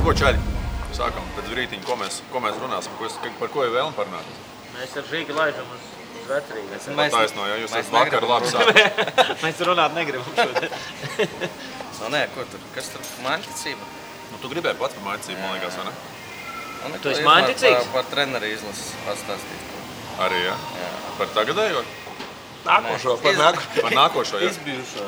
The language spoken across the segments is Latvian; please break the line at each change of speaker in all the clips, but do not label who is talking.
ko, čaļi? Sākam pēc brītiņa, ko mēs runāsim, par ko ir vēlme parunāt?
Mēs ar Žīgu laižam uz Vecrīgu.
Taisno, ja jūs esat vakar labi sākums.
Mēs runāt negribam šodien.
Nē, ko tur? Kas tur? Māņticība?
Nu, tu gribēji pats par māņticību, man liekas, vai ne?
Tu esi māņticīgs?
Par treneri izlases pastāstīt.
Arī, ja? Par tagadējo?
Nākošo,
Par nākošo, ja?
Izbijušo.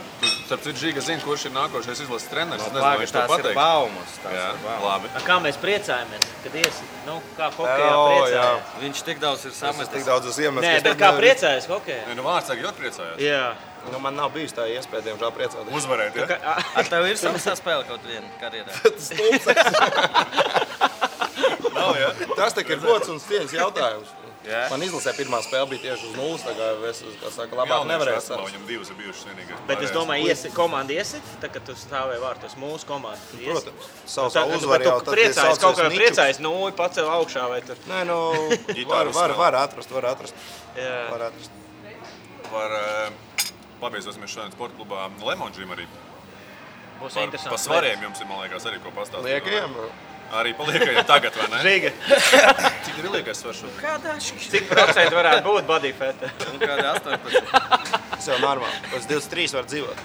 Starp citu, Žiga zina, kurš ir nākošais izlases treneris. Es nezinu,
Pagaid,
vai viņš to
tās ir
pateiks.
baumas.
Jā, labi.
Kā mēs priecājamies, kad iesi? Nu, kā hokejā priecājas?
Viņš tik daudz ir
Es
samestis.
tik daudz esmu iemestis.
Nē, bet kā priecājas hokejā?
Nu, vārds saka, ļoti priecājās.
Jā.
Nu, man nav bijis tā iespēja, diemžēl priecāties.
Uzvarēt, ja?
Ar tev ir samestā spēle kaut viena karjerā?
Nav, ja?
Tas tik ir gods un cieņas jautājums.
Jā.
Man izlasē pirmā spēle bija tieši uz nulles, tā kā es, kā saka, labāk nevarēju
sastāvā.
sākt.
Viņam divas ir bijušas vienīgais.
Bet es domāju, komanda iesit, tā, kad tu stāvēji vārtos mūsu komandu.
Protams, savu uzvaru
Bet
jau
tu priecājies, kaut kā priecājies, nu, pacēl augšā vai tur.
Nē, nu,
Ģitāras
var atrast.
Jā.
Var atrast.
Pabeigsimies šodien sporta klubā Lemon Gym arī.
Būs
Par
interesanti.
svariem jums ir, man liekas, arī ko pastāstīt.
Liekajiem?
Arī paliekajiem tagad, vai ne?
Žiga,
Cik ir liekais svars šodien?
Kādā
cik procenti varētu būt body fat?
Un kādā 18?
Tas jau normāli. Pēc 23 var dzīvot.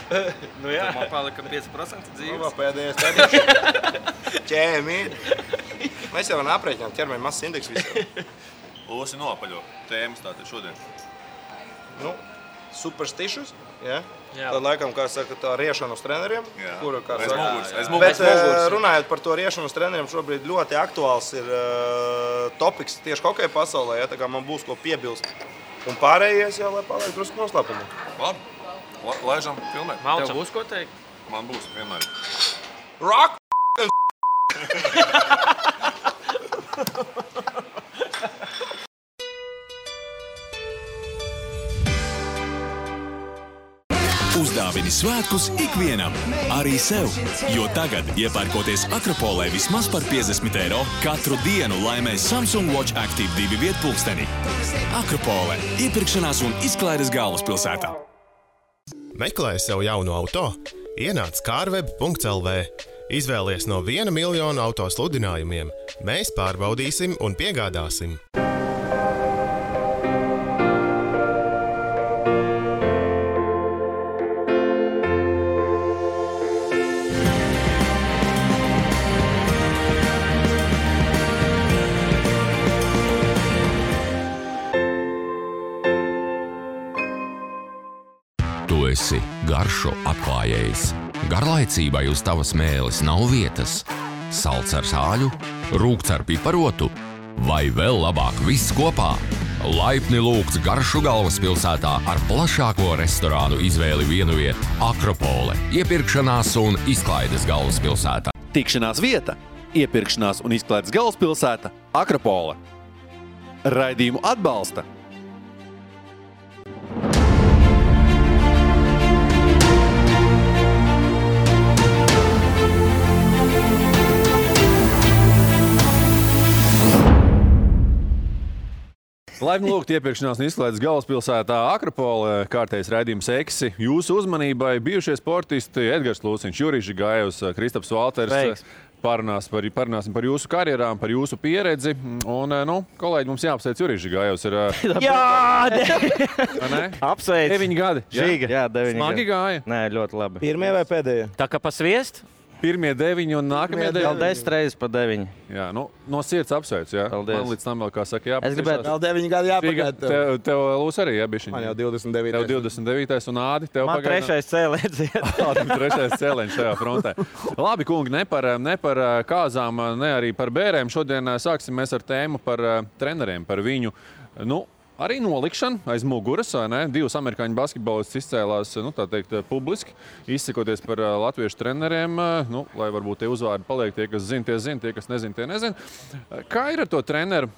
Nu jā.
Man palika 5%
Nu,
dzīves.
pēdējais tēdīši. Ķēmīni. Mēs jau varam aprēķināt ķermeņa masas indeksu visiem.
Losi noapaļo tēmas tātad šodien.
Nu, superstitious. Ja?
Jā.
Tad laikam, kā saka, tā riešana uz treneriem.
Jā.
Kuru, kā
Aiz
saka,
muguras, aiz
Bet
muguras.
runājot par to riešanu uz treneriem, šobrīd ļoti aktuāls ir topiks tieši hokeja pasaulē. Ja? Tā kā man būs ko piebilst. Un pārējais jau, lai paliek drusku noslēpumā.
Labi, laižam filmēt.
Tev
Malčam.
būs ko teikt?
Man būs vienmēr.
Rock!
Uzdāvini svētkus ikvienam, arī sev, jo tagad, iepērkoties Akropolē vismaz par 50 €, katru dienu laimēs Samsung Watch Active 2 vietpulksteni. Akropole – iepirkšanās un izklaides galvaspilsētā.
Meklē sev jaunu auto? Ienāc carweb.lv. Izvēlies no 1 miljonu auto sludinājumiem. Mēs pārbaudīsim un piegādāsim.
Tu esi garšu atklājējs. Garlaicībai uz tavas mēles nav vietas. Salds ar sāļu, rūgts ar piparotu vai vēl labāk viss kopā. Laipni lūgts garšu galvaspilsētā ar plašāko restorānu izvēli vienviet Akropole, iepirkšanās un izklaides galvaspilsētā.
Tikšanās vieta, iepirkšanās un izklaides galvaspilsēta Akropole. Raidījumu atbalsta Laipni lūgt iepirkšanās un izklaides galvaspilsētā Akropole, kārtējs raidījums Eksi. Jūsu uzmanībai bijušie sportisti Edgars Lūciņš, Jurijs Žigājevs, Kristaps Valters.
Sveiks.
Parunāsim par jūsu karjerām, par jūsu pieredzi. Un, kolēģi, mums jāapsveic Jurijs Žigājevs.
Jā, apsveic.
9 gadi.
Žiga.
Jā, 9
Smagi gāja.
Nē, ļoti labi.
Pirmie vai pēdējie?
Tā kā pa sviestu?
Pirmie 9 un nākamie 9.
Vēl 10 reizes pa 9.
Jā, no sirds apsveic. Jā.
Paldies.
Man līdz tam vēl, kā saka,
Es gribētu
Vēl 9 gadi jāpagaida.
Tev Lūs arī, jā, bišķiņ.
Man jau 29.
Tev 29. un Ādi, tev
Man trešais cēlēns iet.
Trešais cēleņš šajā frontē. Labi, kungi, ne par kāzām, ne arī par bērēm. Šodien sāksim mēs ar tēmu par treneriem, par viņu, arī nolikšanu aiz muguras, vai ne? 2 amerikāņu basketbolists izcēlās, tā teikt, publiski, izsakoties par latviešu treneriem, lai varbūt tie uzvārdi paliek, tie, kas zina, tie, kas nezina, tie nezina. Kā ir ar to treneru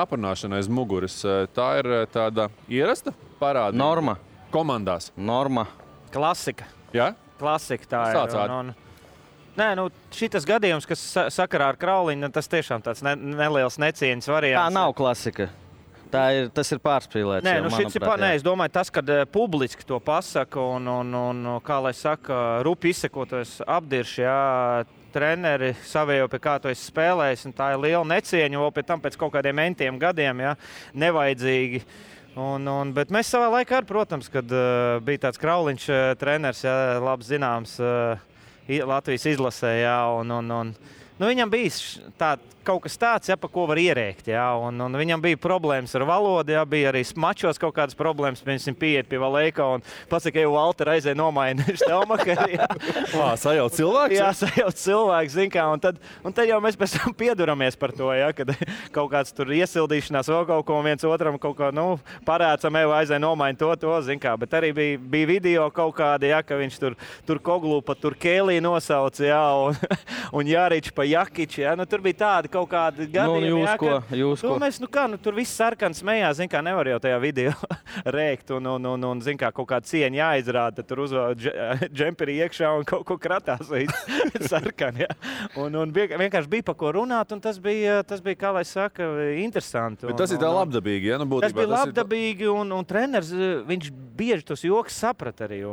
aprunāšanu aiz muguras? Tā ir tāda ierasta parāda?
Norma.
Komandās?
Norma.
Klasika.
Jā?
Klasika tā
Sāc,
ir. Nē, šitas gadījums, kas sakarā ar Krauliņu, tas tiešām tāds neliels necieņas variants.
Tā nav klasika. Tas ir pārspīlēts.
Nē,
manuprāt,
es domāju, tas, kad publiski to pasaka un kā lai saka, rupi izsekoties apdirši, jā, treneri savējo, pie kā tu esi spēlējis, un tā ir liela necieņa, vēl pie tam pēc kaut kādiem mentiem gadiem, ja, nevajadzīgi. Bet mēs savā laikā arī, protams, kad bija tāds Krauliņš treneris, ja, labi zināms, Latvijas izlasē, ja, viņam bija kaut kas tāds, ja, pa ko var ierēkt. Ja, un viņam bija problēmas ar valodu, ja, bija arī mačos kaut kādas problēmas. Viņš pieiet pie Valēka un pasaka, ka Walter aizēja nomaina Štelmakeri. Ja.
Sajauc cilvēks?
Jā, sajauc cilvēks, zin kā. Un tad jau mēs pēc tam pieduramies par to, ja, kad kaut kāds tur iesildīšanās vēl kaut ko viens otram kaut ko, parēcam, aizēja nomaina to, zin kā. Bet arī bija video kaut kādi, ja, ka viņš tur Koglu pa tur Kēlī nosauc, ja, un Jārič pa Jakiči, ja. Tur bija tādi kaut kādi gadījumi,
jūs ko?
Mēs, tur viss sarkans smējās, zin kā, nevar jau tajā video rēkt un zin kā, kaut kāda cieņa jāizrāda, tad tur uzvēl džemperi iekšā un kaut ko kratās sarkan, ja. Un vienkārši bija pa ko runāt, un tas bija, kā lai saka, interesanti.
Bet tas ir tā labdabīgi, ja?
Tas bija labdabīgi, un treneris, viņš bieži tos joks saprata arī.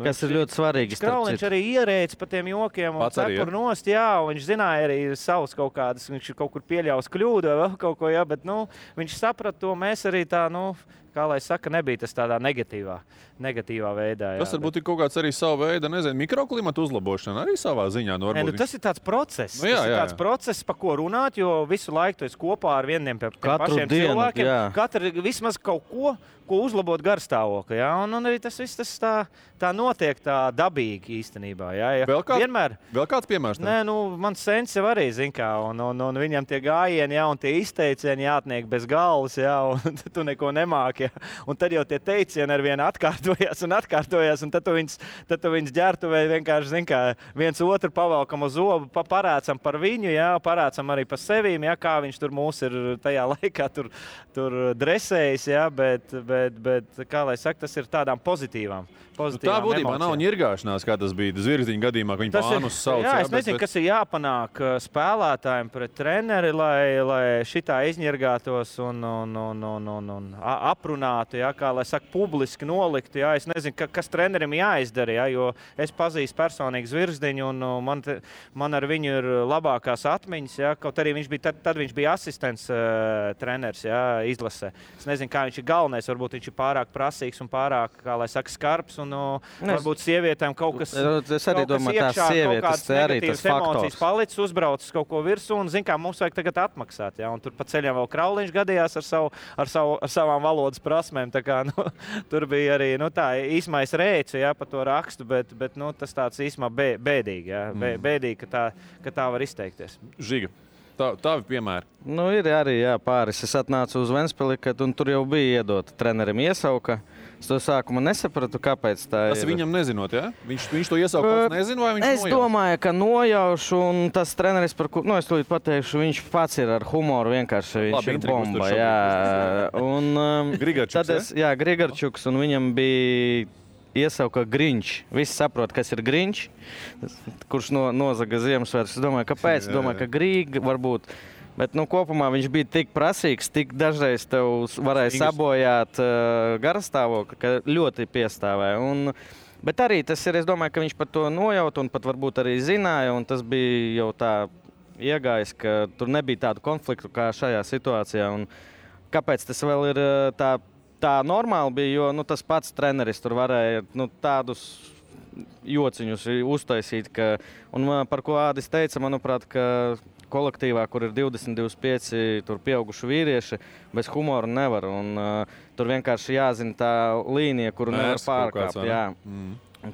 Kas ir ļoti svarīgi.
Krauliņš arī ierēdz pa tiem jokiem un cepur nost, jā, un viņš zināja arī savus kaut kādas, viņš kaut kur pieļaus kļūdu vai vēl kaut ko, jā, bet, viņš saprata to, mēs arī tā, kā lai saka, nebija tas tādā negatīvā veidā. Jā,
tas varbūt ir kaut kāds arī savu veidu, mikroklimatu uzlabošana arī savā ziņā.
Tas ir tāds process. Tas ir tāds process, pa ko runāt, jo visu laiku tu esi kopā ar vieniem pašiem cilvēkiem. Katru vismaz kaut ko uzlabot garstāvokli. Ja? Un arī tas viss tā notiek tā dabīgi īstenībā. Ja?
Vēl kāds piemērs?
Nē, mans sens jau arī, zin kā, un viņam tie gājieni, ja, un tie izteicieni jātniek bez galvas, ja, un tu neko nemāki. Ja? Un tad jau tie teicieni ar vienu atkārtojās, un tad tu viņus ģērtuvē vienkārši, zin kā, viens otru pavalkam uz zobu, parācam par viņu, ja, parācam arī par sevīm, ja, kā viņš tur mūs ir tajā laikā tur dresējis, ja, bet kā lai saka, tas ir tādām pozitīvām
tā būtībā nav ņirgāšanās, kā tas bija Zvirziņa gadījumā, ka viņi pānus sauc.
Jā, es nezinu, kas ir jāpanāk spēlētājiem pret treneri, lai šitā izņirgātos un aprunātu, ja, kā lai saka, publiski noliktu. Ja. Es nezinu, kas trenerim jāizdara, ja, jo es pazīstu personīgi Zvirziņu un man ar viņu ir labākās atmiņas. Ja, kaut arī tad viņš bija asistents treneris, ja, izlasē. Es nezinu, kā viņš ir galvenais, varbūt viņš ir pārāk prasīgs un pārāk, kā lai saka, skarbs. Varbūt sievietēm kaut kas
iekšā, kaut kādas
negatīvas emocijas palicis, uzbraucis kaut ko virsū un, zin kā, mums vajag tagad atmaksāt. Ja? Un tur pa ceļam vēl Krauliņš gadījās ar savām valodas prasmēm. Tā kā, tur bija arī tā īsmais rēci, ja, pa to rakstu, bet tas tāds īsmā bēdīgi. Ja? Bēdīgi, ka tā var izteikties.
Žiga. Tavi piemēri.
Ir arī pāris. Es atnācu uz Ventspili, un tur jau bija iedota trenerim iesauka. Es to sākumā nesapratu, kāpēc tā ir.
Tas viņam nezinot, ja? Viņš to iesauku pats nezina, vai viņš nojauš?
Es domāju, ka nojaušu, un tas treneris, par ko, es tūlīt pateikšu, viņš pats ir ar humoru, vienkārši viņš ir bomba, jā. Un
Grigarčuks,
Grigarčuks, un viņam bija iesauka Grinč. Visi saprot, kas ir Grinč, kurš nozaga Ziemassvētkus. Es domāju, kāpēc? Es domāju, ka Grīga varbūt. Bet kopumā viņš bija tik prasīgs, tik dažreiz tev varēja sabojāt garastāvokli, ka ļoti piestāvēja. Bet arī tas ir, es domāju, ka viņš par to nojaut un pat varbūt arī zināja, un tas bija jau tā iegājis, ka tur nebija tādu konfliktu kā šajā situācijā. Un kāpēc tas vēl ir tā normāli bija, jo tas pats treneris tur varēja tādus jociņus uztaisīt, un par ko Ādis teica, manuprāt, ka kolektīvā, kur ir 20-25 pieauguši vīrieši, bez humora nevar. Tur vienkārši jāzina tā līnija, kuru nevar pārkāpt.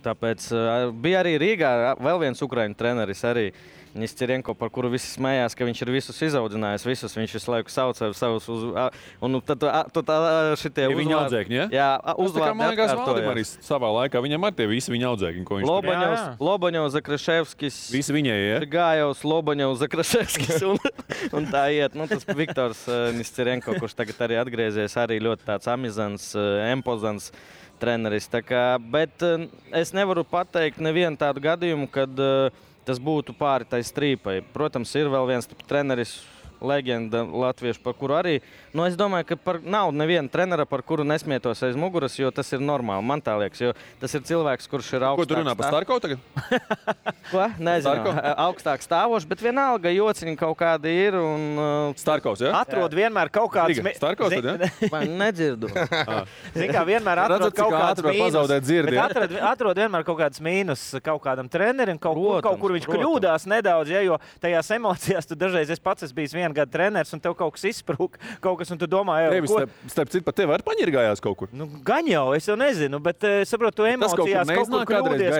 Tāpēc bija arī Rīgā vēl viens ukraiņu treneris arī. Nestirenko, par kuru visi smējās, ka viņš ir visus izaudzinājis, viņš visu laiku sauc ar savus un tad šitie
uzvārdi. Viņa audzēkņi, ja?
Jā,
uzvārdi atkārtojās. Arī savā laikā viņam ar tie visi viņa audzēkņi, ko viņš
Lobaņovs, Zakraševskis.
Visi viņai, ja?
Gājovs, Lobaņovs, Zakraševskis un tā iet. Tas Viktors Nestirenko, kurš tagad arī atgriezies, arī ļoti tāds amizants, empozants treneris. Bet es nevaru pateikt nevienu tādu gadījumu, kad tas būtu pāri tai strīpai. Protams, ir vēl viens treneris, leģenda latviešu, par kuru arī. Nu, es domāju, ka nav neviena trenera, par kuru nesmietos aiz muguras, jo tas ir normāli. Man tā liekas, jo tas ir cilvēks, kurš ir augstāks.
Ko tu runā par Starkovu tagad?
Ko? Nezinu. Augstāk stāvošs, bet vienalga jociņi kaut kādi ir.
Starkovs, jā?
Atrod vienmēr kaut kāds...
Starkovs, tad, jā?
Vai nedzirdu?
Zin kā, vienmēr atrod kaut kāds mīnus. Atrod vienmēr kaut kāds mīnus kaut kādam trenerim, kaut kur viņš kļūdās nedaudz, ja, jo tajās emocijās tu dažreiz pats esi bijis vienu gadu treneris un tev kaut kas izsprūk, kaut kas, un tu domā,
ko... Starp citu, pat tev arī paņirgājās kaut kur?
Nu, gan jau, es jau nezinu, bet saprotu, tu emocijās kaut kur kļūdies,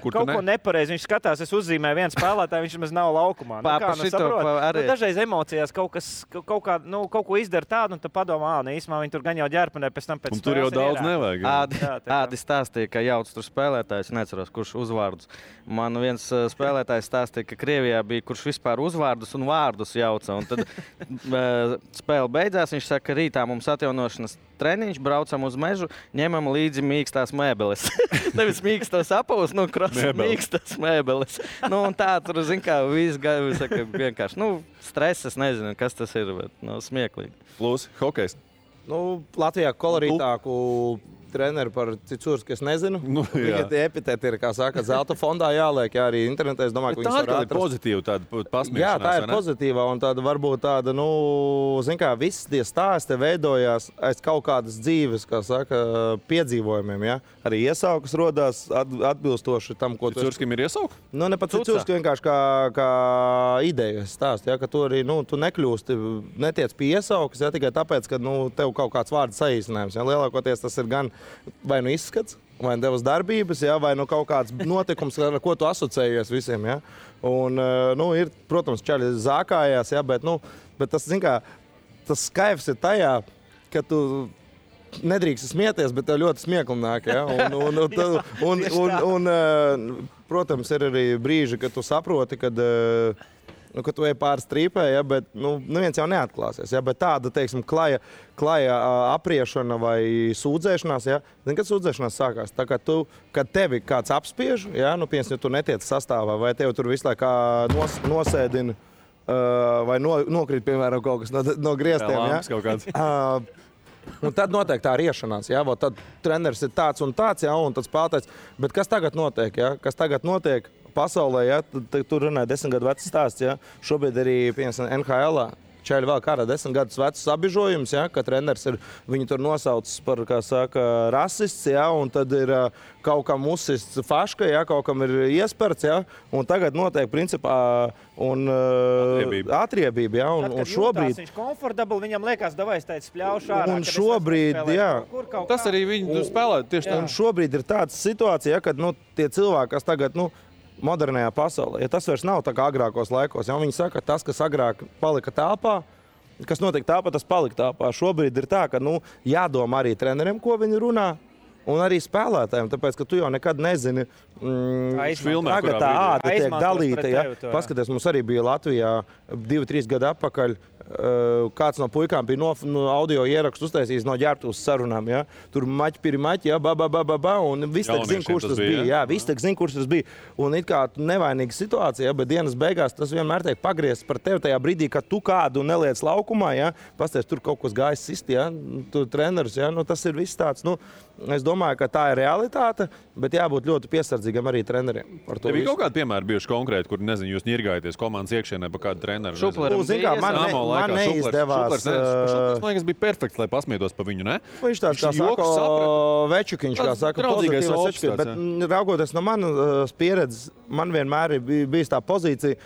kaut ko nepareizi. Viņš skatās, es uzzīmēju vienu spēlētāju, viņš maz nav laukumā. Dažreiz emocijās kaut ko izdara tādu, un tu padomā, īsumā viņi tur gan jau ģērpanē, pēc tam pēc
spēles. Un tur jau daudz nevajag.
Ādi stāstīja, ka jauc tur spēlētājs, neceros, kurš uzvārdus. Man viens spēlētājs stāstīja, ka Krievijā bija, kurš vispār uzvārdus un vārdus jauca. Un tad spēle beidzās, viņš saka, ka rītā mums atjaunošanas treniņš, braucam uz mežu, ņemam līdzi mīkstās mēbeles. Nevis mīkstos apavus, mīkstas mēbeles. Nu, un tā tur, zin kā, viss saka, vienkārši, stress, es nezinu, kas tas ir, bet smieklīgi.
Plus, hokejs.
Latvijā kolorītāku treneri par Cicūrs, ka es nezinu. Viņa tie epitēti ir, kā saka, zelta fondā jāliek, jā, arī internetā. Es domāju, ka viņas var atrast.
Tā ir pozitīva tāda pasmiešanās.
Jā, tā ir pozitīva, un tāda varbūt tāda, zin kā, viss tie stāsti veidojās aiz kaut kādas dzīves, kā saka, piedzīvojumiem, jā. Arī iesaukas rodās atbilstoši tam, ko tu...
Cicūrskim ir iesauka?
Ne pat Cicūrskim vienkārši kā ideja stāst, jā, ka tu arī, tu nekļūsti, netiec pie iesaukas, jā, tikai tāpēc, ka, tev kaut kāds vārds saīsinājums, jā. Lielākoties tas ir gan vai izskats, vai tevas darbības, ja, vai kaut kāds notikums, ar ko tu asociējies visiem. Ja. Un, ir, protams, čaļi zākājās, ja, bet tas, zin kā, tas skaivs ir tajā, ka tu nedrīkst smieties, bet tev ļoti smiekli nāk. Ja. Un, protams, ir arī brīži, kad tu saproti, kad tu ej pāri strīpē, ja, bet neviens jau neatklāsies. Ja, bet tāda, teiksim, klaja apriešana vai sūdzēšanās, ja, zini, kad sūdzēšanās sākās? Tā kā kad tevi kāds apspiež, ja, piemēram, ja tu netiec sastāvā, vai tevi tur visu laiku nosēdina, vai nokrīt, piemēram, kaut kas no griestiem. Ja. Un tad notiek tā riešanās, ja, tad treneris ir tāds un tāds, ja, un tad spēlētājs. Bet kas tagad notiek? Ja? Kas tagad notiek pasaulē, ja? Tur runāja 10 gadu vecs stāsts, ja? Šobrīd arī, piemēram, NHL-ā čaļi vēl kādā 10 gadus vecs apbižojums, ja? Ka treneris ir, viņu tur nosaucis par, kā saka, rasists, ja? Un tad ir kaut kam uzsists faška, ja? Kaut kam ir iesperts, ja? Un tagad notiek, principā, atriebība, ja? Un šobrīd...
Viņš komfortabli, viņam liekas, davai es teicu spļaušu ārā.
Un šobrīd, jā.
Tas arī viņi spēlē tieši tā.
Un šobrīd ir tāda situācija, ja, kad, tie cilvēki, kas tagad, modernajā pasaulē, ja tas vairs nav tā kā agrākos laikos, ja viņi saka, tas, kas agrāk palika telpā, kas notiek telpā, tas palika telpā. Šobrīd ir tā, ka, jādomā arī treneriem, ko viņi runā, un arī spēlētājiem, tāpēc, ka tu jau nekad nezini, tagad tā āda tiek dalīta, ja. Paskaties, mums arī bija Latvijā 2-3 gadu atpakaļ, kāds no puikām bija no audio ierakstu uztaisījis no ģērbtuves sarunām, ja. Tur maķi, ja, un viss tak zin, kurš tas bija, jā, viss tak zin, kurš tas bija. Un it kā nevainīga situācija, ja, bet dienas beigās tas vienmēr tiek pagriezts par tevi tajā brīdī, kad tu kādu neliec laukumā, ja, pasties, tur kaut kas gājis sist, ja, tu treneris, ja, tas ir viss tāds, es domāju, ka tā ir realitāte, bet jābūt ļoti piesardzīgam arī treneriem.
Tev bija kaut kādi piemēri bijuši konkrēti, kur, nezinu, jūs ņirgājaties komandas iekšienē pa kādu treneru?
Man neizdevās.
Šuplers, man liekas, bija perfekts, lai pasmietos pa viņu, ne?
Viņš tāds, kā saka, večukiņš, kā saka, pozitīvais večukiņš. Bet raugoties no manas pieredzes, man vienmēr ir bijis tā pozīcija,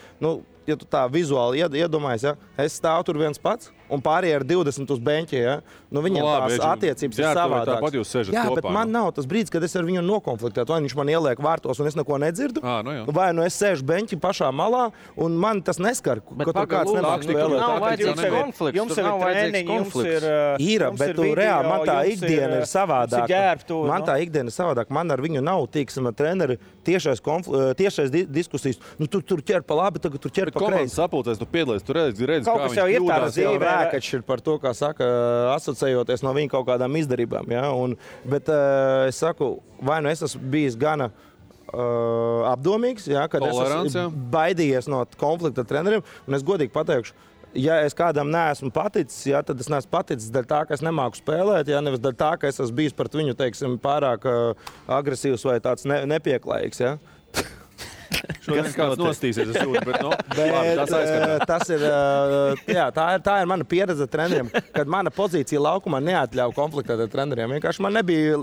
ja tu tā vizuāli iedomājies, ja, es stāvu tur viens pats un pārējie ar 20 uz beņķi, ja, viņiem tās attiecības ir savādākas.
Tāpat jūs sežat
jā,
kopā.
Bet man nav tas brīdis, kad es ar viņu nokonfliktētu, vai viņš man ieliek vārtos un es neko nedzirdu, vai es sēžu beņķi pašā malā un man tas neskar, ka tur kāds nemāk spēlēt.
Nav vajadzīgs konflikts.
Jums ir treniņi, jums
ir, bet tu reāli, man tā ikdiena ir savādāka. Man tā ikdiena ir savādāka. Man ar viņu nav, tīksim, treneri tiešais diskusijas. Tur ķer pa labi, tagad tur ķer pa kreisi.
Komandas sapulcēs, tu piedalies, tu redzi, kā viņš kļūdās.
Vēkačs ir par to, kā saka, asociējoties no viņa kaut kādām izdarībām. Ja? Bet es saku, vai es esmu bijis gana apdomīgs, ja? Kad es esmu baidījies no konflikta ar treneriem, un es godīgi pateikšu, ja es kādam neesmu paticis, ja, tad es neesmu paticis dēļ tā, ka es nemāku spēlēt, ja, nevis dēļ tā, ka es esmu bijis pret viņu, teiksim, pārāk agresīvs vai tāds nepieklājīgs. Ja.
Šodien kāds nostīsies, es jūtu, bet,
tā ir mana pieredze treneriem, kad mana pozīcija laukumā neatļauj konfliktēt ar treneriem. Vienkārši man nebija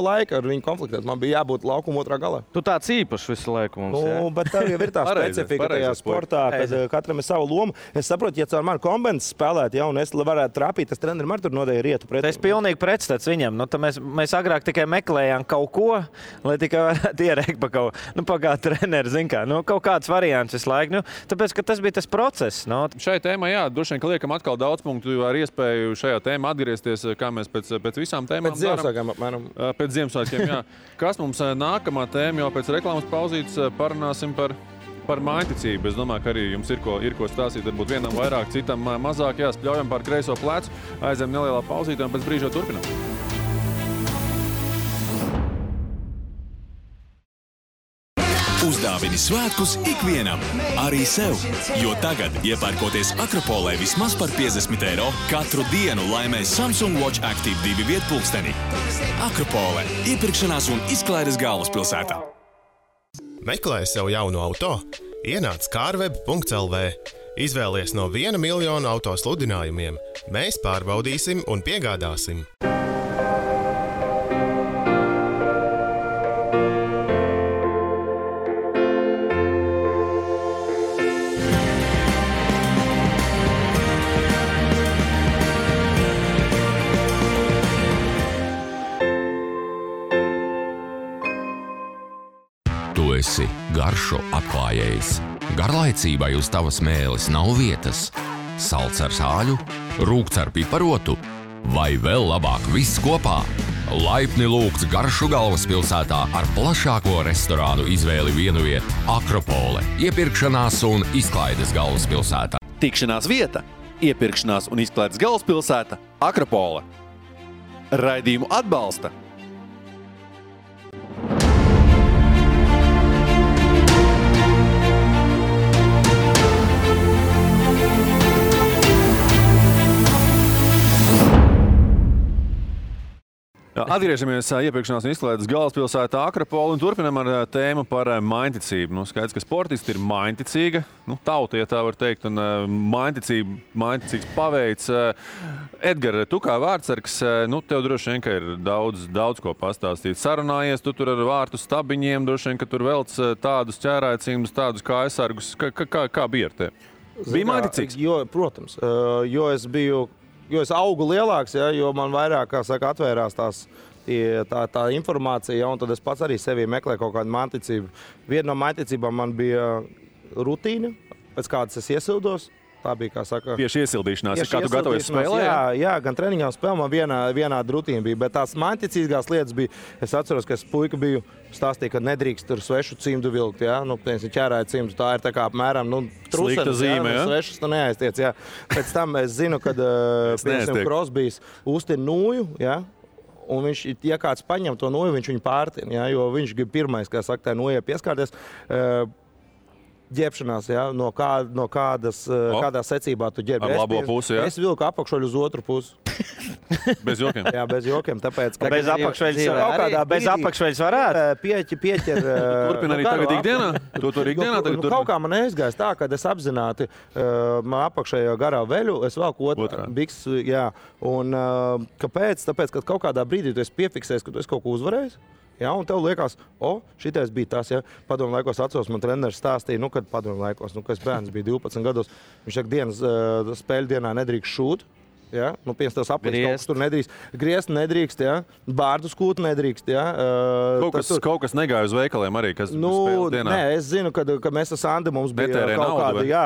laika ar viņu konfliktēt, man bija jābūt laukuma otrā galā.
Tu tāds īpašs visu laiku mums,
Bet tev jau ir tā specifika tajā sportā, kad katram ir sava loma. Es saprotu, ja caur mani kombinēs spēlēt, ja, un es varētu trāpīt, tas trenerim ar tur nodēja rietu pret.
Es pilnīgi pretstats viņam. Mēs agrāk tikai meklējām kaut ko, lai tikai varētu ierēkt pa kaut ko. Kā treneri, zin kā, kaut kāds variants visu laiku. Tāpēc, ka tas bija tas process.
Šai tēmai, droši vien, ka liekam atkal daudz punktu ar iespēju šajā tēmā atgriezties, kā mēs pēc visām tēmām
pēc Ziemassvētkiem, apmēram.
Pēc Ziemassvētkiem, jā. Kas mums nākamā tēma, jau pēc reklāmas pauzītes parunāsim par mājticību. Es domāju, ka arī jums ir ko stāstīt, varbūt vienam vairāk, citam mazāk. Jā, spļaujam pār kreiso plecu, aizem nelielā pauzītē un pēc brīža turpinām.
Uzdāvini svētkus ikvienam, arī sev, jo tagad, iepērkoties Akropolē vismaz par 50 eiro, katru dienu laimē Samsung Watch Active 2 vietpulksteni. Akropolē – iepirkšanās un izklaides galvaspilsētā.
Meklē sev jaunu auto? Ienāc carweb.lv. Izvēlies no 1 miljonu auto sludinājumiem. Mēs pārbaudīsim un piegādāsim.
Tu esi garšo atklājējs. Garlaicībai uz tavas mēles nav vietas. Salds ar sāļu, rūkts ar piparotu vai vēl labāk viss kopā. Laipni lūgts Garšu galvaspilsētā ar plašāko restorānu izvēli vienvieta Akropole, iepirkšanās un izklaides galvaspilsētā.
Tikšanās vieta, iepirkšanās un izklaides galvaspilsēta Akropole. Raidījumu atbalsta
Atgriežamies iepirkšanās un izklaides galvaspilsētā Akropole un turpinām ar tēmu par mājticību. Skaidrs, ka sportisti ir mājticīga, tauta, ja tā var teikt, un mājticīgs paveids. Edgar, tu kā vārdsargs, tev droši vien, ka ir daudz ko pastāstīt. Sarunājies tu tur ar vārtu stabiņiem, droši vien, ka tur velc tādus ķērājcīmus, tādus kā aizsargus. Kā bija ar tevi? Bija mājticīgs?
Protams, jo es augu lielāks, ja, jo man vairāk, kā saka, atvērās tā informācija, ja, un tad es pats arī sevī meklēju kaut kādu mājticību. Viena no mājticībām man bija rutīna, pēc kādas es iesildos. Tā bija, kā saka,
tieši iesildīšanās, kā tu gatavojies spēlē?
Jā, gan treniņā un spēlē man vienāda rutīna bija, bet tās mājticīgās lietas bija, es atceros, ka es puika biju stāstīja, ka nedrīkst tur svešu cimdu vilkt, ja? Ķērāja cimdu, tā ir tā kā apmēram,
slikta zīme, ja?
Svešus tu neaiztiec, jā. Pēc tam es zinu, kad, piemēram, Krosbijs uztin nūju, ja? Un viņš, ja kāds paņem to nūju, viņš viņu pārtin, ja? Jo viņš grib pirmais, kā saka, tā nūjai pieskārties. Ģērbšanās, ja? Kādā secībā tu ģērbi.
Ar labo pusi, ja?
Es vilku apakšoļu uz otru pusi.
Bez jokiem?
Jā, bez jokiem, tāpēc, ka...
Bez apakšveļas varētu?
Pieķer...
Turpin arī tagad ikdienā? Tu tur ikdienā tagad turpin?
Kaut kā man neizgājis tā, kad es apzināti man apakšējo garā veļu, es velku otrā biks, jā. Un kāpēc? Tāpēc, ka kaut kādā brīdī tu esi piefiksējis, ka tu esi kaut ko uzvarējis. Ja, un tev liekas, šitais bija tas, ja. Padomu laikos atceros, man treneris stāstīja, kad padomu laikos, kad es bērns bija 12 gados, viņš saka, spēļu dienā nedrīkst šūt. Ja? Piemēram, tās aplīst, tur nedrīkst. Griezt nedrīkst, ja? Bārdu skūt nedrīkst. Ja?
Kaut kas negāja uz veikaliem arī, kas spēles dienā?
Nē, es zinu, ka mēs ar Sandi mums bija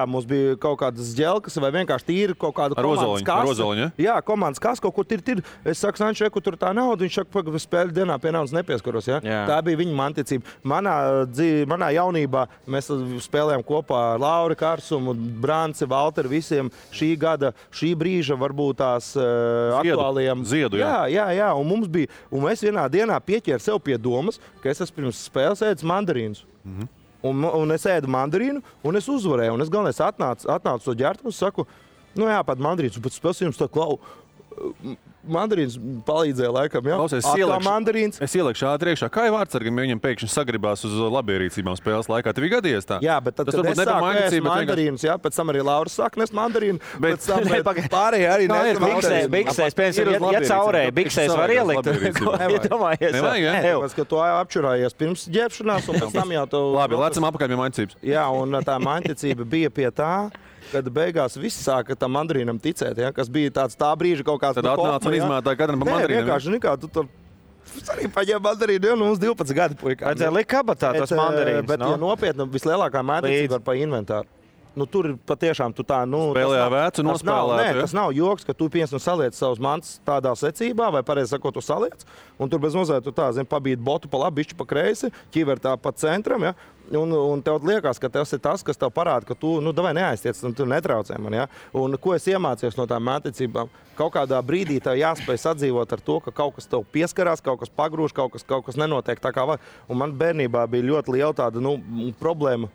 mums bija kaut kādas ģelkas vai vienkārši tīri kaut kādu komandas kasu.
Rozoliņu, ja?
Jā, komandas kasu kaut kur tir. Es saku, Sanči, kur tā nauda, viņš saka, ka spēļu dienā pie naudas nepieskaros. Ja? Tā bija viņa manticība. Manā jaunībā mēs spēlējām kopā ar Lauri Karsumu, Branci, Valteri, visiem šī brīža varbūt tās aktuālajiem.
Ziedu,
jā. Un mums bija, un es vienā dienā pieķēru sev pie domas, ka es esmu pirms spēles ēdis mandarīnus. Un es ēdu mandarīnu, un es uzvarēju. Un es galvenais atnācu to ģērtu un saku, Nu jā, pat mandarīns, bet spēs jums tā klau. Mandarīns palīdzēja laikam, jā.
Klausies, es ielieku ātri iekšā. Kā jau vārdsargam, ja viņam pēkšņi sagribās uz labierīcībām spēles laikā? Tev ir gadījies tā?
Jā, bet tad, kad es sāku ēst mandarīnus, jā, pēc tam arī Lauris sāk nest mandarīnu, pēc tam pārējie arī nes mandarīnu.
Biksēs, piemēram, ja caurēji, biksēs var ielikt.
Tāpēc, ka tu apčurājies pirms ģērbšanās, un pēc tam jau tu...
Labi, lecam apakaļ pie mainticības.
Jā, un tā mainticība bija pie tā, kad beigās viss sāka tam mandarīnam ticēt, ja, kas bija tāds tā brīža kaut kāds...
Tad atnāca un izmētāja katram pa mandarīnam.
Vienkārši nekā, tu tur arī paņēma mandarīnu, ja, mums 12 gadi puikā.
Vajadzēja likt kabatā tos mandarīnus,
Bet, ja nopietni, vislielākā mainticība var pa inventāru. Nu, tur ir patiešām tu tā,
spēlējā vēcu nospēlēt.
Tas nav joks, ka tu saliec savus mantas tādā secībā, vai pareizi sakot, tu saliec, un tur bez mazliet tu tā, pabīt botu pa labi, bišķi pa kreisi, ķiver tā pa centram, ja, un tev liekas, ka tas ir tas, kas tev parāda, ka tu, davai neaiztiec, un tu netraucē man, ja. Un ko es iemācījos no tām māticībām? Kaut kādā brīdī tev jāspēj sadzīvot ar to, ka kaut kas tev pieskarās, kaut kas pagrūž, kaut kas nenotiek tā kā vajag. Un man bērnībā bija ļoti liela tāda, problēma.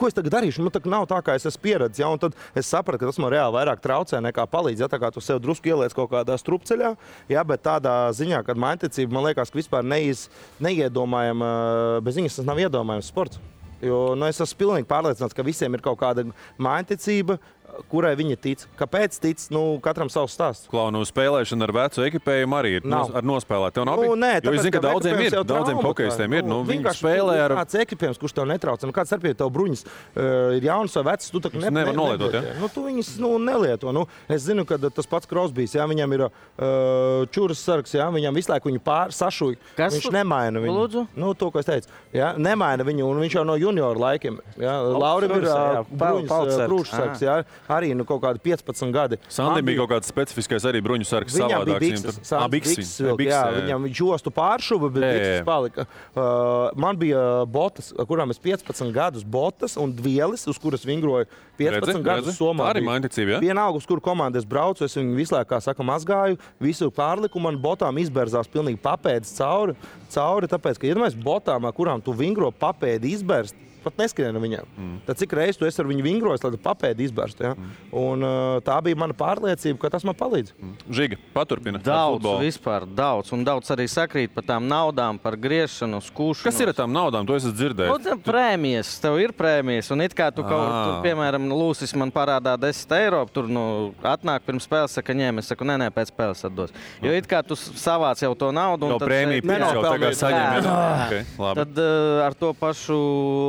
Ko es tagad darīšu? Man nav tā, kā es esmu pieredzis. Ja? Un tad es sapratu, ka tas man reāli vairāk traucē nekā palīdz. Ja? Tā kā tu sev drusku ieliec kaut kādā strupceļā, ja? Bet tādā ziņā, kad mainticība, man liekas, ka vispār neiedomājama, bez viņas tas nav iedomājams sports. Jo es esmu pilnīgi pārliecināts, ka visiem ir kaut kāda mainticība, kurai viņi tic. Kāpēc tic? Katram savs stāsts.
Klaunu spēlēšana ar vecu ekipējumu arī ir ar nospēlēt. Tev nav
nē,
jo es zinu, ka daudziem hokejistiem ir. Viņi spēlē ar...
Kāds ekipējums, kurš tev netrauc. Kāds starpība tev bruņas ir jauns vai vecs, tu taču
nevar nolietot, ja?
Tu viņas nelieto. Es zinu, ka tas pats Crosbys, ja, viņam ir čuras sargs, ja, viņam visu laiku viņu sašuj. Viņš nemaina viņu.
Lūdzu?
To, ko es teicu. Ja, nemaina viņu, un viņš jau no junioru laikiem. Ja. Laurim ir bruņas krūšsargs, ja. Arī kaut kādi 15 gadi.
Sandim bija kaut kāds specifiskais arī bruņu sargs savādāks.
Viņam jostu pāršuva, bet bikses palika. Man bija botas, kurām es 15 gadus botas un dvielis, uz kuras vingroju 15 gadus Somā.
Arī mainticība, ja?
Vienalga, uz kuru komandu es braucu, es viņu visu laiku, kā saka, mazgāju, visu pārliku, man botām izberzās pilnīgi papēdis cauri, tāpēc, ka, ja mēs botām, kurām tu vingro papēdi izberst, pat neskrien viņam. Tad cik reiz tu esi ar viņu vingrojis, lai tu papēdi izbērstu. Ja? Un tā bija mana pārliecība, ka tas man palīdz.
Žiga, paturpina.
Daudz. Un daudz arī sakrīt par tām naudām, par griešanu, skūšanu.
Kas ir ar tām naudām? To esat dzirdējis?
Prēmijas. Tev ir prēmijas. Un it kā tu tur, piemēram, Lūsis man parādā 10 eiro, tur atnāk pirms spēles, saka, ņem, es saku, nē, pēc spēles atdos. Jo it kā tu savāc jau to naudu.
Un tad prēmija jau tagad saņem.
Tad ar to pašu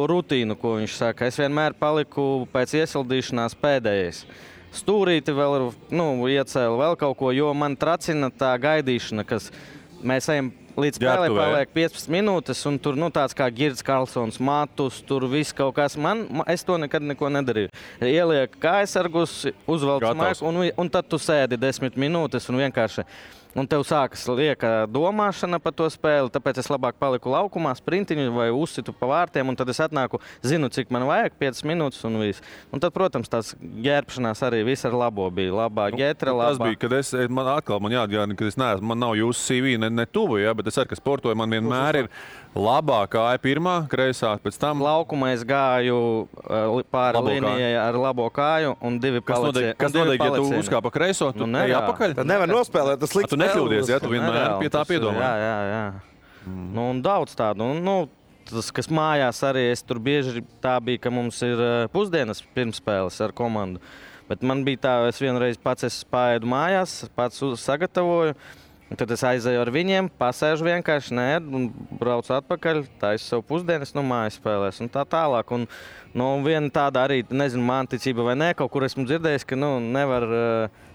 rutīnu, ko viņš saka. Es vienmēr paliku pēc iesildīšanās pēdējais. Stūrīti vēl iecēlu vēl kaut ko, jo man tracina tā gaidīšana, kas mēs ejam līdz spēlē paliek 15 minūtes, un tur tāds kā Girds Karlsons, Matus, tur viss kaut kas. Es to nekad neko nedarīju. Ieliek kājasargus, uzvelc maiku, un tad tu sēdi 10 minūtes un vienkārši... Un tev sākas lieka domāšana par to spēli, tāpēc es labāk paliku laukumā, sprintiņu vai uzsitu pa vārtiem, un tad es atnāku, zinu, cik man vajag, 5 minūtes un viss. Un tad, protams, tās ģērbšanās arī viss ar labo bija. Labā ģetra, labā.
Tas bija, kad man jāatgādina, ka es neesmu, man nav jūsu CV ne tuvu, ja, bet es arī, ka sportoju, man vienmēr ir labā kāja pirmā, kreisā, pēc tam.
Laukumā es gāju pāri līnijai ar labo kāju un 2 palicieni.
Kas notiek, ja tu uzkāp pa kreiso, tu ej apakaļ?
Tad nevar nospēlēt, tas slikts.
Tu nekļūdies, ja tu vienmēr pie tā piedomā.
Jā. Un daudz tādu. Tas, kas mājās arī, es tur bieži tā bija, ka mums ir pusdienas pirmspēles ar komandu. Bet man bija tā, es vienreiz pats paēdu mājās, pats sagatavoju. Un tad es aizēju ar viņiem, pasēžu vienkārši, un braucu atpakaļ, taisu sev pusdienas, mājas spēlēs un tā tālāk. Un viena tāda arī, nezinu, manticība vai nē, kaut kur esmu dzirdējis, ka nevar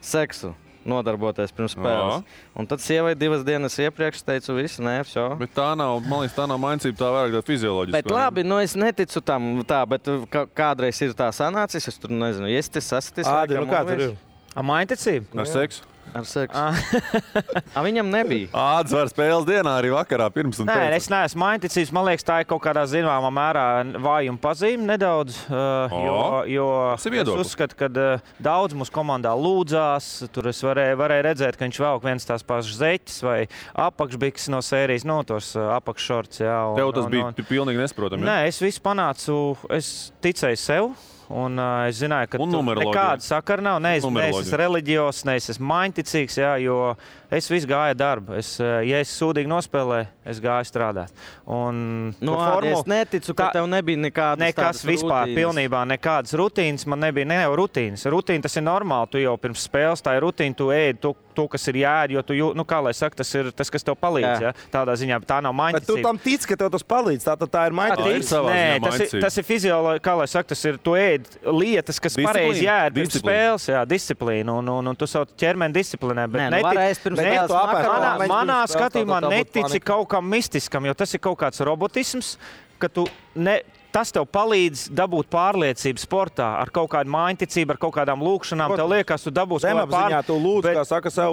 seksu nodarboties pirms spēles. Un tad sievai 2 dienas iepriekš teicu, viss, vso.
Bet tā nav, man liekas, tā nav mainicība, tā vairāk tā fizioloģiska.
Bet labi, es neticu tam tā, bet kādreiz ir tā sanācis, es tur nezinu, iestis, sastis.
Ādi, kā tur ir?
Mainticība?
Ar seksu?
Ar seksu. Viņam nebija.
Ādas var spēles dienā arī vakarā pirms un pēc.
Nē, es neesmu mainticīgs. Man liekas, tā ir kaut kādā zināmā mērā vājuma pazīme nedaudz. Jo es uzskatu, ka daudz mūsu komandā lūdzās. Tur es varēju redzēt, ka viņš velk viens tās pašas zeķes vai apakšbikses no sērijas, tos apakššorts.
Tev tas bija pilnīgi nesaprotami.
Nē, es visu panācu. Es ticēju sev. Un es zināju, ka
numeroloģija.
nekāda sakara nav. Ne es esmu reliģijos, ne es esmu mainticīgs, jā, jo es visu gāju darbu. Ja es sūdīgi nospēlēju, es gāju strādāt. Un
es neticu, ka tev nebija
nekas vispār, pilnībā nekādas rutīnas. Man nebija ne jau rutīnas. Rutīna tas ir normāli. Tu jau pirms spēles tā ir rutīna, tu ēdi to kas ir jāēd, jo tu, kā lai saka, tas ir tas, kas tev palīdz. Jā. Tādā ziņā, tā nav mainticība.
Bet tu tam tici, ka tev tas palīdz, tā ir mainticība.
Nē, tas ir fizioloģija, kā lai saka, tas ir, tu ēd lietas, kas pareizi jāēd pirms spēles, jā, disciplīna, un tu savu ķermeni disciplinē. Manā skatījumā netici kaut kam mistiskam, jo tas ir kaut kāds robotisms, ka tu tas tev palīdz dabūt pārliecību sportā ar kaut kādu mainticību, ar kaut kādām lūkšanām. Tev liekas, tu dabūsi kaut kādu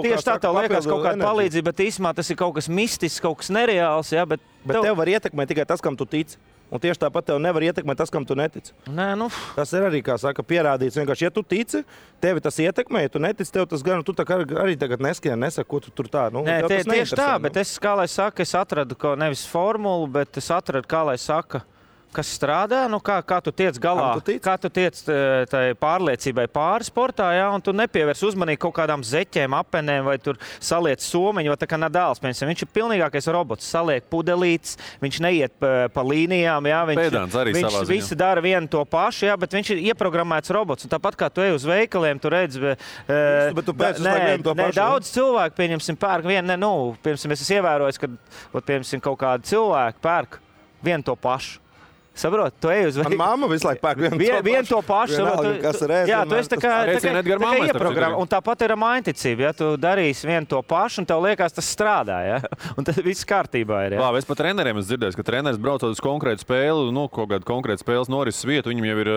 tieši tā, tev liekas kaut kāda palīdzība, bet īsumā tas ir kaut kas mistisks, kaut kas nereāls. Jā, bet
tev var ietekmēt tikai tas, kam tu tici. Un tieši tāpat tev nevar ietekmēt tas, kam tu netici. Tas ir arī, kā saka, pierādīts. Vienkārši, ja tu tici, tevi tas ietekmē, ja tu netici, tev tas gan, tu tā kā arī tagad nesaka, ko tu tur tā.
Tieši tā, bet es, kā lai saka, es atradu nevis formulu, bet es atradu, kā lai saka, kas strādā, kā tu tiec galā, kā tu tiec tai pārliecībai pāri sportā, jā, un tu nepievērs uzmanību kaut kādām zeķēm, apenēm, vai tur saliec somiņu, vai tā kā Nadāls, piemēram, viņš ir pilnīgākais robots, saliek pudelītes, viņš neiet pa līnijām, jā, viņš visi dara vienu to pašu, jā, bet viņš ir ieprogrammēts robots, un tāpat kā tu ej uz veikaliem, tu redzi, daudz cilvēku, pieņemsim, pērk vienu, piemēram, es esmu ievērojis, ka, piemēram, kaut kādi cilvēki pērk vienu to pašu. Saprot, tu ej uz
veikalu. Mamma visu laiku pērk
vienu to pašu. Jā, tu esi tā kā ieprogrammēts. Un tāpat ir mainticība. Ja tu darīsi vienu to pašu, un tev liekas, tas strādā. Ja? Un tas viss kārtībā ir.
Labi, es pat treneriem esmu dzirdējis, ka treneris braucot uz konkrētu spēli, kaut kādu konkrētu spēles norises vietu, viņam jau ir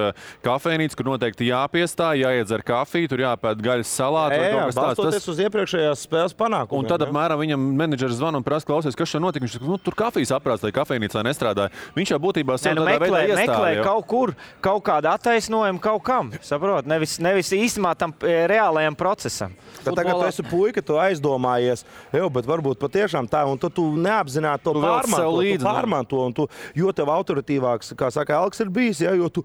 kafejnīca, kur noteikti jāpiestāj, jāiedzer kafiju, tur jāpēd gaļas salātu.
Jā, balstoties uz iepriekšējās spēles panākumiem.
Un tad apmēram viņam menedžeris zvana un prasa, klausies, kas šeit notika. Viņš saka, tur kafijas aprāts, lai kafejnīcā nestrādāja. Viņš jau būtībā
meklē kaut kur, kaut kādu attaisnojumu kaut kam, saprot? Nevis īstenībā tam reālajam procesam.
Tagad tu esi puika, tu aizdomājies, bet varbūt patiešām tā, un tu neapzināti to pārmanto, jo tev autoritīvāks, kā saka, Elks ir bijis, ja, jo tu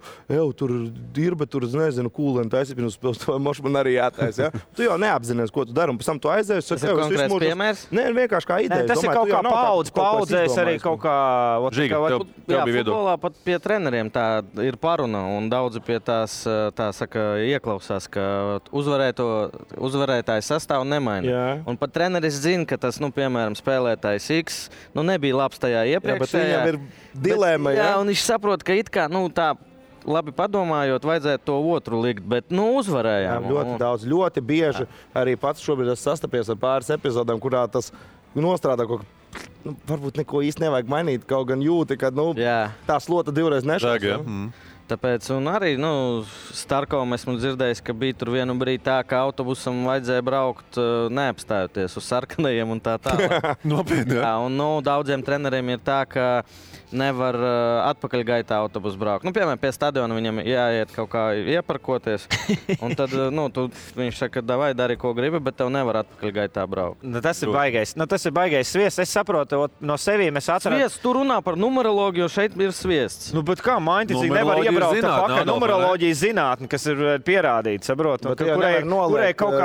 tur dirba, tur, nezinu, kūleni taisi, pirms spēles, to mošu man arī jātais, ja. Tu jau neapzinies, ko tu dari, un pēc tam tu aizējies.
Tas ir konkrēts piemērs?
Nē, vienkārši kā ideja.
Tas ir kaut kā paudzēs arī kaut kā...
Futbolā pat pie treneriem tā ir paruna, un daudzi pie tās, tā saka, ieklausās, ka uzvarētājs sastāvu nemaina. Jā. Un pat treneris zina, ka tas, piemēram, spēlētājs X, nebija labs tajā iepriekšējā.
Jā, bet viņam ir dilēma,
jā, un viņš saprot, ka it kā, tā labi padomājot, vajadzētu to otru likt, bet, uzvarējām.
Jā, ļoti daudz, ļoti bieži. Arī pats šobrīd es sastapies ar pāris epizodēm, kurā tas nostrādā kaut kā. Varbūt neko īsti nevajag mainīt, kaut gan jūti, ka tā slota divreiz nešās.
Tāpēc, un arī, Starkovam esmu dzirdējis, ka bija tur vienu brīdi tā, ka autobusam vajadzēja braukt neapstājoties uz sarkanajiem un tā tālāk.
Nopietni,
jā. Un, daudziem treneriem ir tā, ka nevar atpakaļgaitā autobusu braukt. Piemēram, pie stadiona viņam jāiet kaut kā ieparkoties, un tad, viņš saka, davai dari, ko gribi, bet tev nevar atpakaļgaitā braukt.
Tas ir baigais. Tas ir baigais sviests. Es saprotu, no sevīm es atradu.
Sviests, tu runā par numeroloģiju, jo šeit ir sviests.
Bet kā mainticīgi nevar iebraukt pakaļ numeroloģijas zinātni, kas ir pierādīta, saprot? Kurai kaut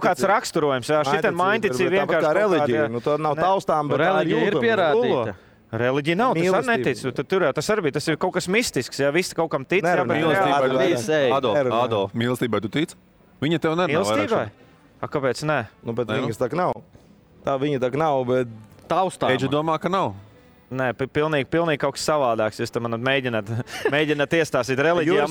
kāds raksturojums. Šitai mainticīgi vienkārši
kā reliģija. Tā nav taustām, bet
reliģija ir pierādīta.
Reliģija nav, tas arī netic. Tas arī bija, tas ir kaut kas mistisks, ja visi kaut kam tic.
Adolf, mīlestībai tu tic? Viņa tev nerunā vairāk.
Kāpēc ne?
Bet viņas tā nav. Tā viņa tā nav, bet
taustām.
Eģi domā, ka nav.
Nē, pilnīgi kaut kas savādāks. Jūs man mēģināt iestāstīt reliģijā.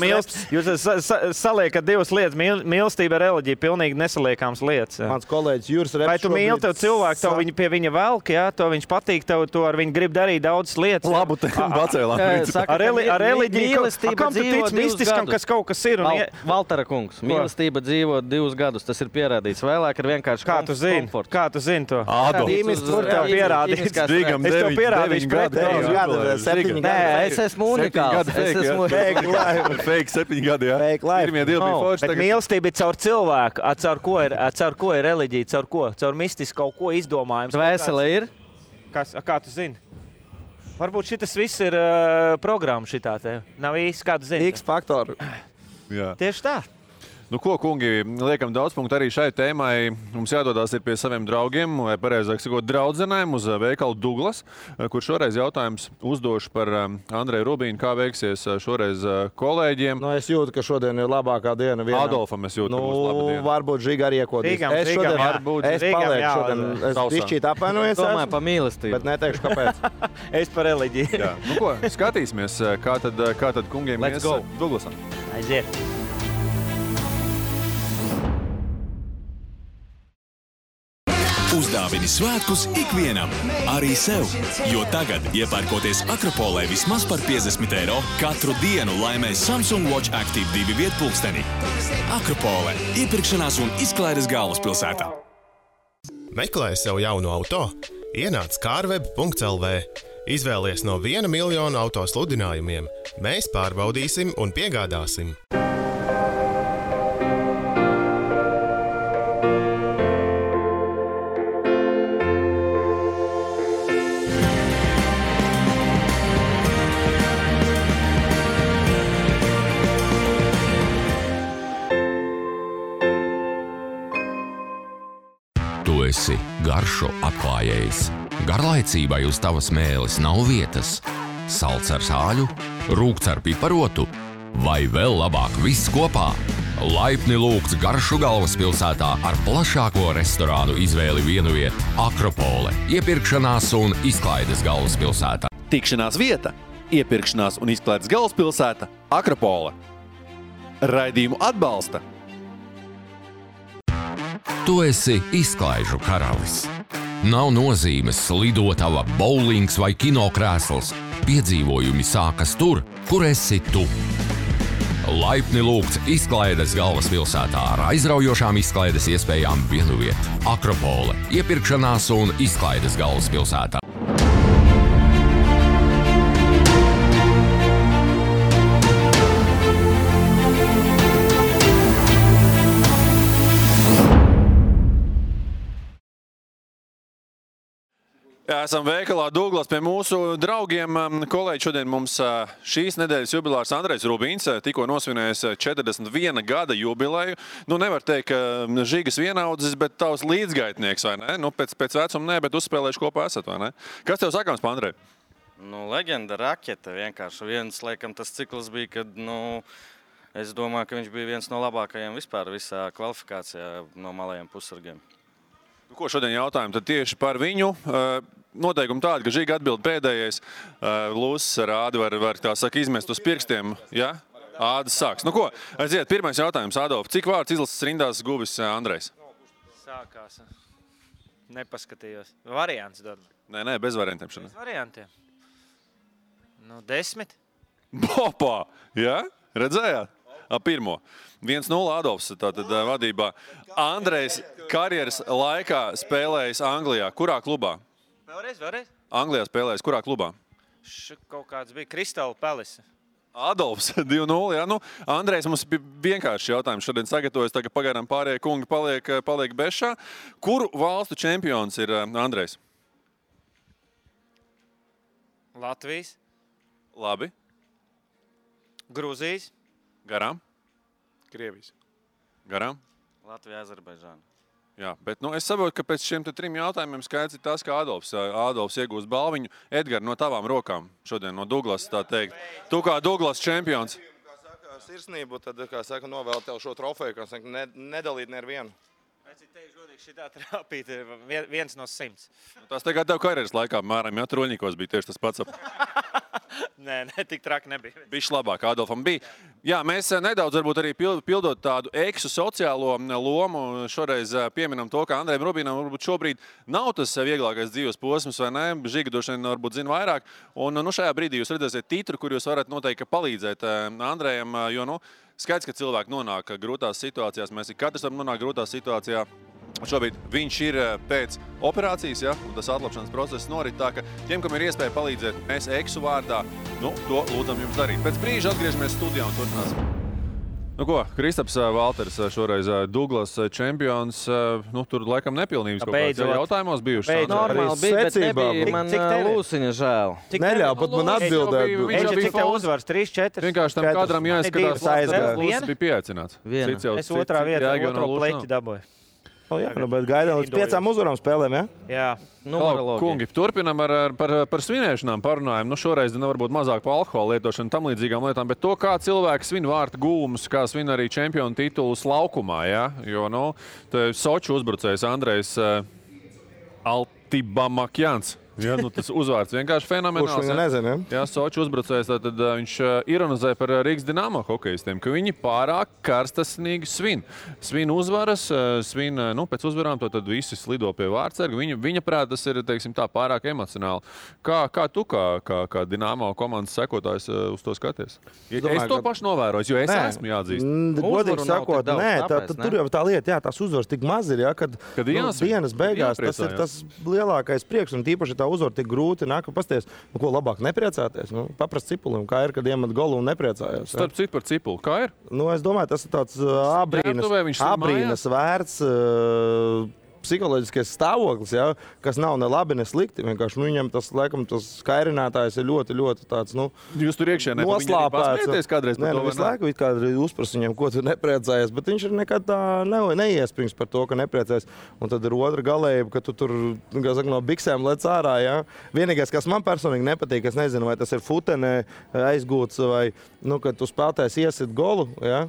Jūs saliekat divas lietas. Mīlestība ir reliģija, pilnīgi nesaliekāms lietas. Jā.
Mans kolēģis Juris Reps.
Vai tu mīli tev cilvēku, tev viņi pie viņa velk, jā, to viņš patīk, tev to ar viņu grib darīt daudzas lietas.
Labu te pacēlām.
Ar reliģiju, kam tu tic mistiskam, kas kaut kas ir?
Valtera kungs, mīlestība dzīvo 2 gadus, tas ir pierādīts. Vēlāk ir vienkārši komforts.
Kā tu zini to?
Adolf.
Es esmu unikāls.
Fake 7 gadi, jā. Pirmie 2 bija forši.
Bet mīlestība ir caur cilvēku. Caur ko ir reliģija? Caur ko? Caur mistisku kaut ko izdomājums.
Dvēsele ir?
Kā tu zini? Varbūt šitas viss ir programma šitā te. Nav īsti kādu zinu.
X faktoru.
Jā.
Tieši tā.
Nu, ko, kungi, liekam daudz punktu arī šai tēmai. Mums jādodās ir pie saviem draugiem, vai pareizāk sakot, draudzenēm uz veikalu Douglas, kur šoreiz jautājums uzdošu par Andreju Rubīnu, kā veiksies šoreiz kolēģiem.
Nu, es jūtu, ka šodien ir labākā diena.
Adolfam es jūtu, ka būs laba diena.
Varbūt Žiga arī iekodīs. Es palieku šodien. Es bišķīt apvainojos.
Domāju par mīlestību.
Bet neteikšu, kāpēc.
Es par reliģiju.
Jā. Nu, ko, skatīsimies, kā tad kungiem
Let's go.
Douglasam.
Aiziet.
Uzdāvini svētkus ikvienam, arī sev, jo tagad, iepērkoties Akropolē vismaz par 50 eiro, katru dienu laimē Samsung Watch Active 2 vietpulksteni. Akropolē – iepirkšanās un izklaides galvaspilsētā.
Meklē sev jaunu auto? Ienāc carweb.lv. Izvēlies no 1 miljona auto sludinājumiem. Mēs pārbaudīsim un piegādāsim.
Tu esi garšo atklājējs. Garlaicībai uz tavas mēles nav vietas. Salds ar sāļu, rūgts ar piparotu vai vēl labāk viss kopā. Laipni lūgts Garšu galvaspilsētā ar plašāko restorānu izvēli vienu vietu Akropole, iepirkšanās un izklaides galvaspilsētā.
Tikšanās vieta, iepirkšanās un izklaides galvaspilsēta Akropole. Raidījumu atbalsta.
Tu esi izklaižu karalis. Nav nozīmes lidotava, bowlings vai kinokrēsls. Piedzīvojumi sākas tur, kur esi tu. Laipni lūgts izklaides galvaspilsētā ar aizraujošām izklaides iespējām vienu vietu. Akropole, iepirkšanās un izklaides galvaspilsētā.
Jā, esam veikalā Douglas pie mūsu draugiem. Kolēģi, šodien mums šīs nedēļas jubilārs Andrejs Rubīns tikko nosvinējis 41 gada jubileju. Nu, nevar teikt, ka Žigas vienaudzis, bet tavs līdzgaitnieks, vai ne? Nu, pēc vecuma ne, bet uzspēlējuši kopā esat, vai ne? Kas tev sakāms par Andreju?
Nu, leģenda, raketa vienkārši. Viens, laikam, tas cikls bija, kad, es domāju, ka viņš bija viens no labākajiem vispār visā kvalifikācijā no malajiem pussargiem.
Ko šodien jautājam? Tad tieši par viņu. Noteikumi tādi, ka Žiga atbild pēdējais. Lūsis ar ādi var tā saka izmest uz pirkstiem. Ja? Ādas sāks. Nu ko, aiziet, pirmais jautājums, Adolf. Cik vārds izlases rindās guvis Andrejs?
Sākās. Nepaskatījos. Variants dod.
Nē, bez variantiem šodien.
Bez variantiem. 10.
Bopā! Ja? Redzējāt? Pirmo. 1-0 Adolfs tātad vadībā. Andrejs karjeras laikā spēlējis Anglijā. Kurā klubā?
Vēlreiz.
Anglijā spēlējis. Kurā klubā?
Kaut kāds bija Crystal Palace.
Adolfs 2-0. Ja? Nu, Andrejs mums bija vienkārši jautājums šodien sagatavojas. Tagad pagaidām pārējie kungi paliek bešā. Kuru valstu čempions ir Andrejs?
Latvijas.
Labi.
Grūzijas.
Garām.
Krievijas.
Garām.
Latvija, Azerbaidžāna.
Jā, bet es saprotu, ka pēc šiem 3 jautājumiem skaidrs ir tas, ka Adolfs iegūs balviņu. Edgar, no tavām rokām šodien no Douglas, tā teikt. Tu kā Douglas čempions.
Kā saka, sirsnību, tad, kā saka, novēl tev šo trofeju, kā saka, nedalīt nevienu.
Es teikšu godīgi, šitā trāpīt ir 1 no 100.
Tas tagad tev karjeras laikā, mēram, ja Troļņikos bija tieši tas pats.
Nē, tik traki nebija.
Bišķi labāk Adolfam bija. Jā, mēs nedaudz varbūt arī pildot tādu eksu sociālo lomu. Šoreiz pieminam to, ka Andrejam Rubīnam varbūt šobrīd nav tas vieglākais dzīves posms, vai ne? Žiga droši vien varbūt zina vairāk. Un šajā brīdī jūs redzēsiet titru, kur jūs varat noteikti palīdzēt Andrejam, jo, skaidrs, ka cilvēki nonāk grūtās situācijās. Mēs katrs varam nonākt grūtā situācijā. Šobrīd viņš ir pēc operācijas, ja, un tas atlapšanas process norit tā, ka tiem, kam ir iespēja palīdzēt, mēs eksu vārdā, to lūdzam jums darīt. Pēc brīža atgriežamies studijā un turpināsim. Nu ko, Kristaps Valters šoreiz Douglas čempions. Nu, tur laikam nepilnības kaut kāds jautājumos bijuši.
Normāli bija, bet nebija man Lūsiņa žēl.
Neļauj pat man atbildēt.
Cik tev uzvars? 3-4?
Vienkārši tam kadram jāizskatās, Lūsis bija pieaicināts.
Es otrā vietā otro pleķi dabūju.
Jā, bet gaidām līdz 5 uzvarām spēlēm, ja?
Jā.
Kungi, turpinam par svinēšanām parunājam. Nu, šoreiz varbūt mazāk par alkohola lietošanu tam līdzīgām lietām, bet to, kā cilvēki svin vārtu gūmus, kā svin arī čempionu titulus laukumā, ja? Jo, nu, Soču uzbrucējs Andrejs Altibamakjans. Ja, nu, tas uzvārds vienkārši fenomenāls.
Kurš viņu nezina,
ja? Jā, Soču uzbrucējs, tad viņš ironizē par Rīgas Dinamo hokejistiem, ka viņi pārāk karstasnīgi svin. Svin uzvaras, svin, nu, pēc uzvarām to tad visi slido pie vārtsarga. Viņa prāt, tas ir, teiksim tā, pārāk emocionāli. Kā tu, kā Dinamo komandas sekotājs uz to skaties? Es to pašu novēroju, jo es esmu jāatzīst.
Godīgi sakot, tur jau tā lieta, jā, tās uzvaras tik maz ir, ja, kad dienas beigās tas ir tas lielākais prieks, un tīpaši tā uzvar tik grūti nāk, pasties, ko labāk nepriecāties. Nu, paprast Cipulim, kā ir, kad iemet golu un nepriecājās.
Starp citu par Cipulu, kā ir?
Nu, es domāju, tas ir tāds abrīnas vērts psiholoģiskais stāvoklis, ja, kas nav ne labi, ne slikti. Vienkārši viņam tas, laikam, tas skairinātājs ir ļoti, ļoti tāds, nu,
jūs tur iekšienē
noslāpēts.
Kādreiz par to,
visu laiku kādreiz uzpras viņam, ko tu nepriecājies, bet viņš ir nekad tā neiesprings par to, ka nepriecājies. Un tad ir otra galējība, ka tu tur, kā saka, no biksēm lec ārā, ja. Vienīgais, kas man personīgi nepatīk, es nezinu, vai tas ir futenē aizgūts vai, nu, kad tu spēlētājs iesit golu, ja.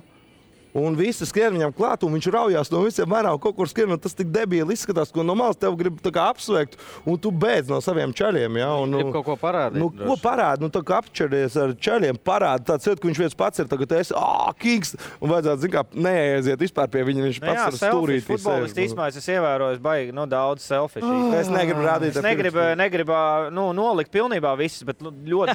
Un visi skrien viņam klāt, un viņš raujās no visiem mērām, kaut kur skrien, un tas tik debīli izskatās, ko no malas tev grib tā kā apsveikt, un tu beidz no saviem čaļiem, ja. Un,
grib kaut ko parādīt.
Nu, ko parādi? Nu, tā kā apčaries ar čaļiem, parādi tāds iet, ka viņš viens pats ir, tagad esi, kings, un vajadzētu, zin kā, neaiziet vispār pie viņa, viņš pats ar stūrīt.
Futbolisti īstenībā es ievēroju, baigi, nu, daudz selfish.
Es negribu rādīt.
Es negribu, nu, nolikt pilnībā visus, bet ļoti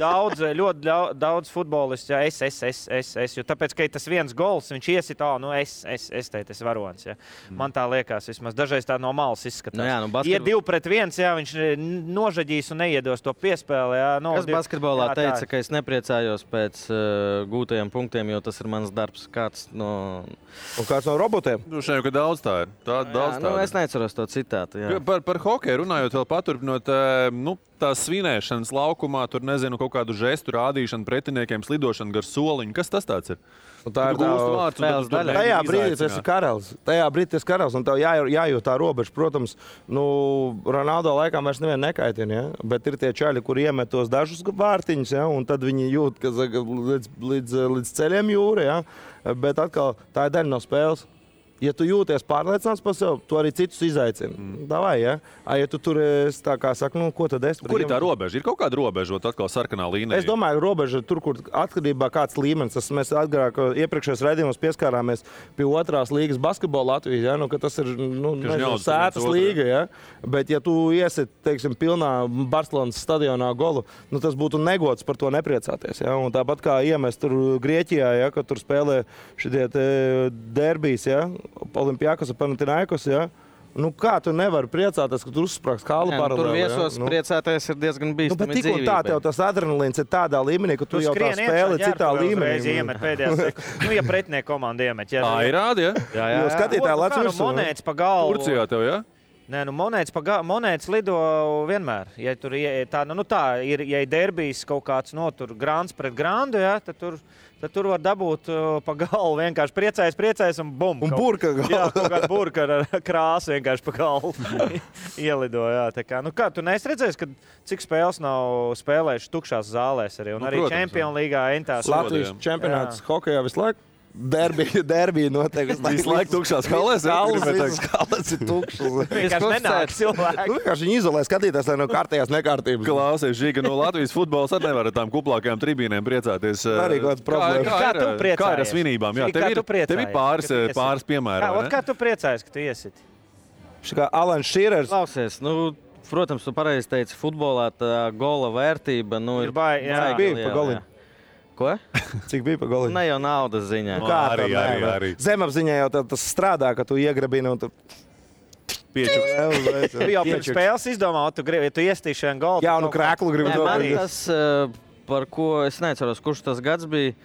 daudz futbolisti, ja, es, jo tāpēc, ka tas viens gols, viņš iesit, nu, es teicu, es varonis. Ja. Man tā liekas, vismaz dažreiz tā no malas izskatās.
Nu,
ja 2-1, jā, viņš nožaģīs un neiedos to piespēli. Jā,
kas basketbolā teica, ka es nepriecājos pēc gūtajiem punktiem, jo tas ir mans darbs. Kāds no
robotiem?
Nu, šeit jau daudz tā ir.
Es neceros to citātu. Jā.
Par hokeju runājot, vēl paturpinot, nu, tās svinēšanas laukumā, tur nezinu, kaut kādu žestu rādīšanu pretiniekiem, slidošanu gar soliņu. Kas tas tāds ir?
Tā ir tajā brīdī tas ir karalis. Tajā brīdī tas ir karalis, un tev jājūt tā robeža. Protams, nu, Ronaldo laikām vairs nevienu nekaitina, ja? Bet ir tie čaļi, kur iemet tos dažus vārtiņus, ja? Un tad viņi jūt, ka līdz ceļiem jūra, ja? Bet atkal tā ir daļa no spēles. Ja tu jūties pārliecināts par sevi, tu arī citus izaicini. Davai, ja? Ja tu tur esi tā kā saka, nu, ko tad es...
Kur ir tā robeža? Ir kaut kāda robeža, atkal sarkanā līnija?
Es domāju, robeža tur, kur atkarībā kāds līmenis. Mēs agrāk iepriekšējos raidījumos pieskārāmies pie 2. līgas basketbola Latvijas, ja? Nu, ka tas ir, nu, sētas līga, ja? Bet ja tu iesit, teiksim, pilnā Barcelonas stadionā golu, nu, tas būtu negods par to nepriecāties, ja? Un tāpat kā iemest tur Grieķijā, ja? Kad tur spēlē šitie derbijas, ja? Olimpiakos un Panathinaikos, ja? Nu, kā tu nevari priecāties, ka tu uzsprāgs kālu paralēli?
Tur viesos priecāties ir diezgan bīstami
dzīvībai. Bet tik un tā tev tas adrenalīns ir tādā līmenī, ka tu jau tā spēli citā līmenī.
Ja pretinieka komanda iemet.
Ir rādi, ja?
Jā. Skatītāji lec virsū.
Monētas pa galvu.
Turcijā tev, ja?
Nē, nu monētas lido vienmēr. Ja tur ir, ja ir derbijs kaut kāds tur grāns pret grāndu, ja, tad tur var dabūt pa galvu vienkārši priecājas un bum.
Un burka galvu.
Jā, kaut kāda burka ar krāsu vienkārši pa galvu ielido, jā. Tā kā, nu kā, tu neesi redzējis, ka cik spēles nav spēlējuši tukšās zālēs arī, un arī Čempionu līgā entās.
Latvijas čempionāts hokejā visu laiku. Derbija noteikti.
Visu laiku tukšās halēs.
Halēs ir tukšas.
Vienkārši nenāk cilvēki.
Vienkārši viņi izolē skatītās, lai no kārtējās nekārtības.
Klausies, Žiga, no Latvijas futbols arī nevar ar tām kuplākajām tribīnēm priecāties.
Arī kāds problēmas.
Kā tu priecājies?
Kā ir ar svinībām? Jā, tev ir pāris piemēri.
Kā tu priecājies, ka tu iesit?
Kā Alans Šīrers.
Klausies, nu, protams, tu pareizi teici, futbolā tā gola vērtība, nu, ir
bija pa goliem.
Ko?
Cik bija pa goliem?
Ne jau naudas ziņā.
Kā arī. Zemapziņā jau tas strādā, ka tu iegrabini un tu...
Piečuks. Tu jau pēc spēles izdomā, ja tu iestīši šajā golā.
Jaunu krēklu gribu
man tas, par ko es neceros, kurš tas gads bija,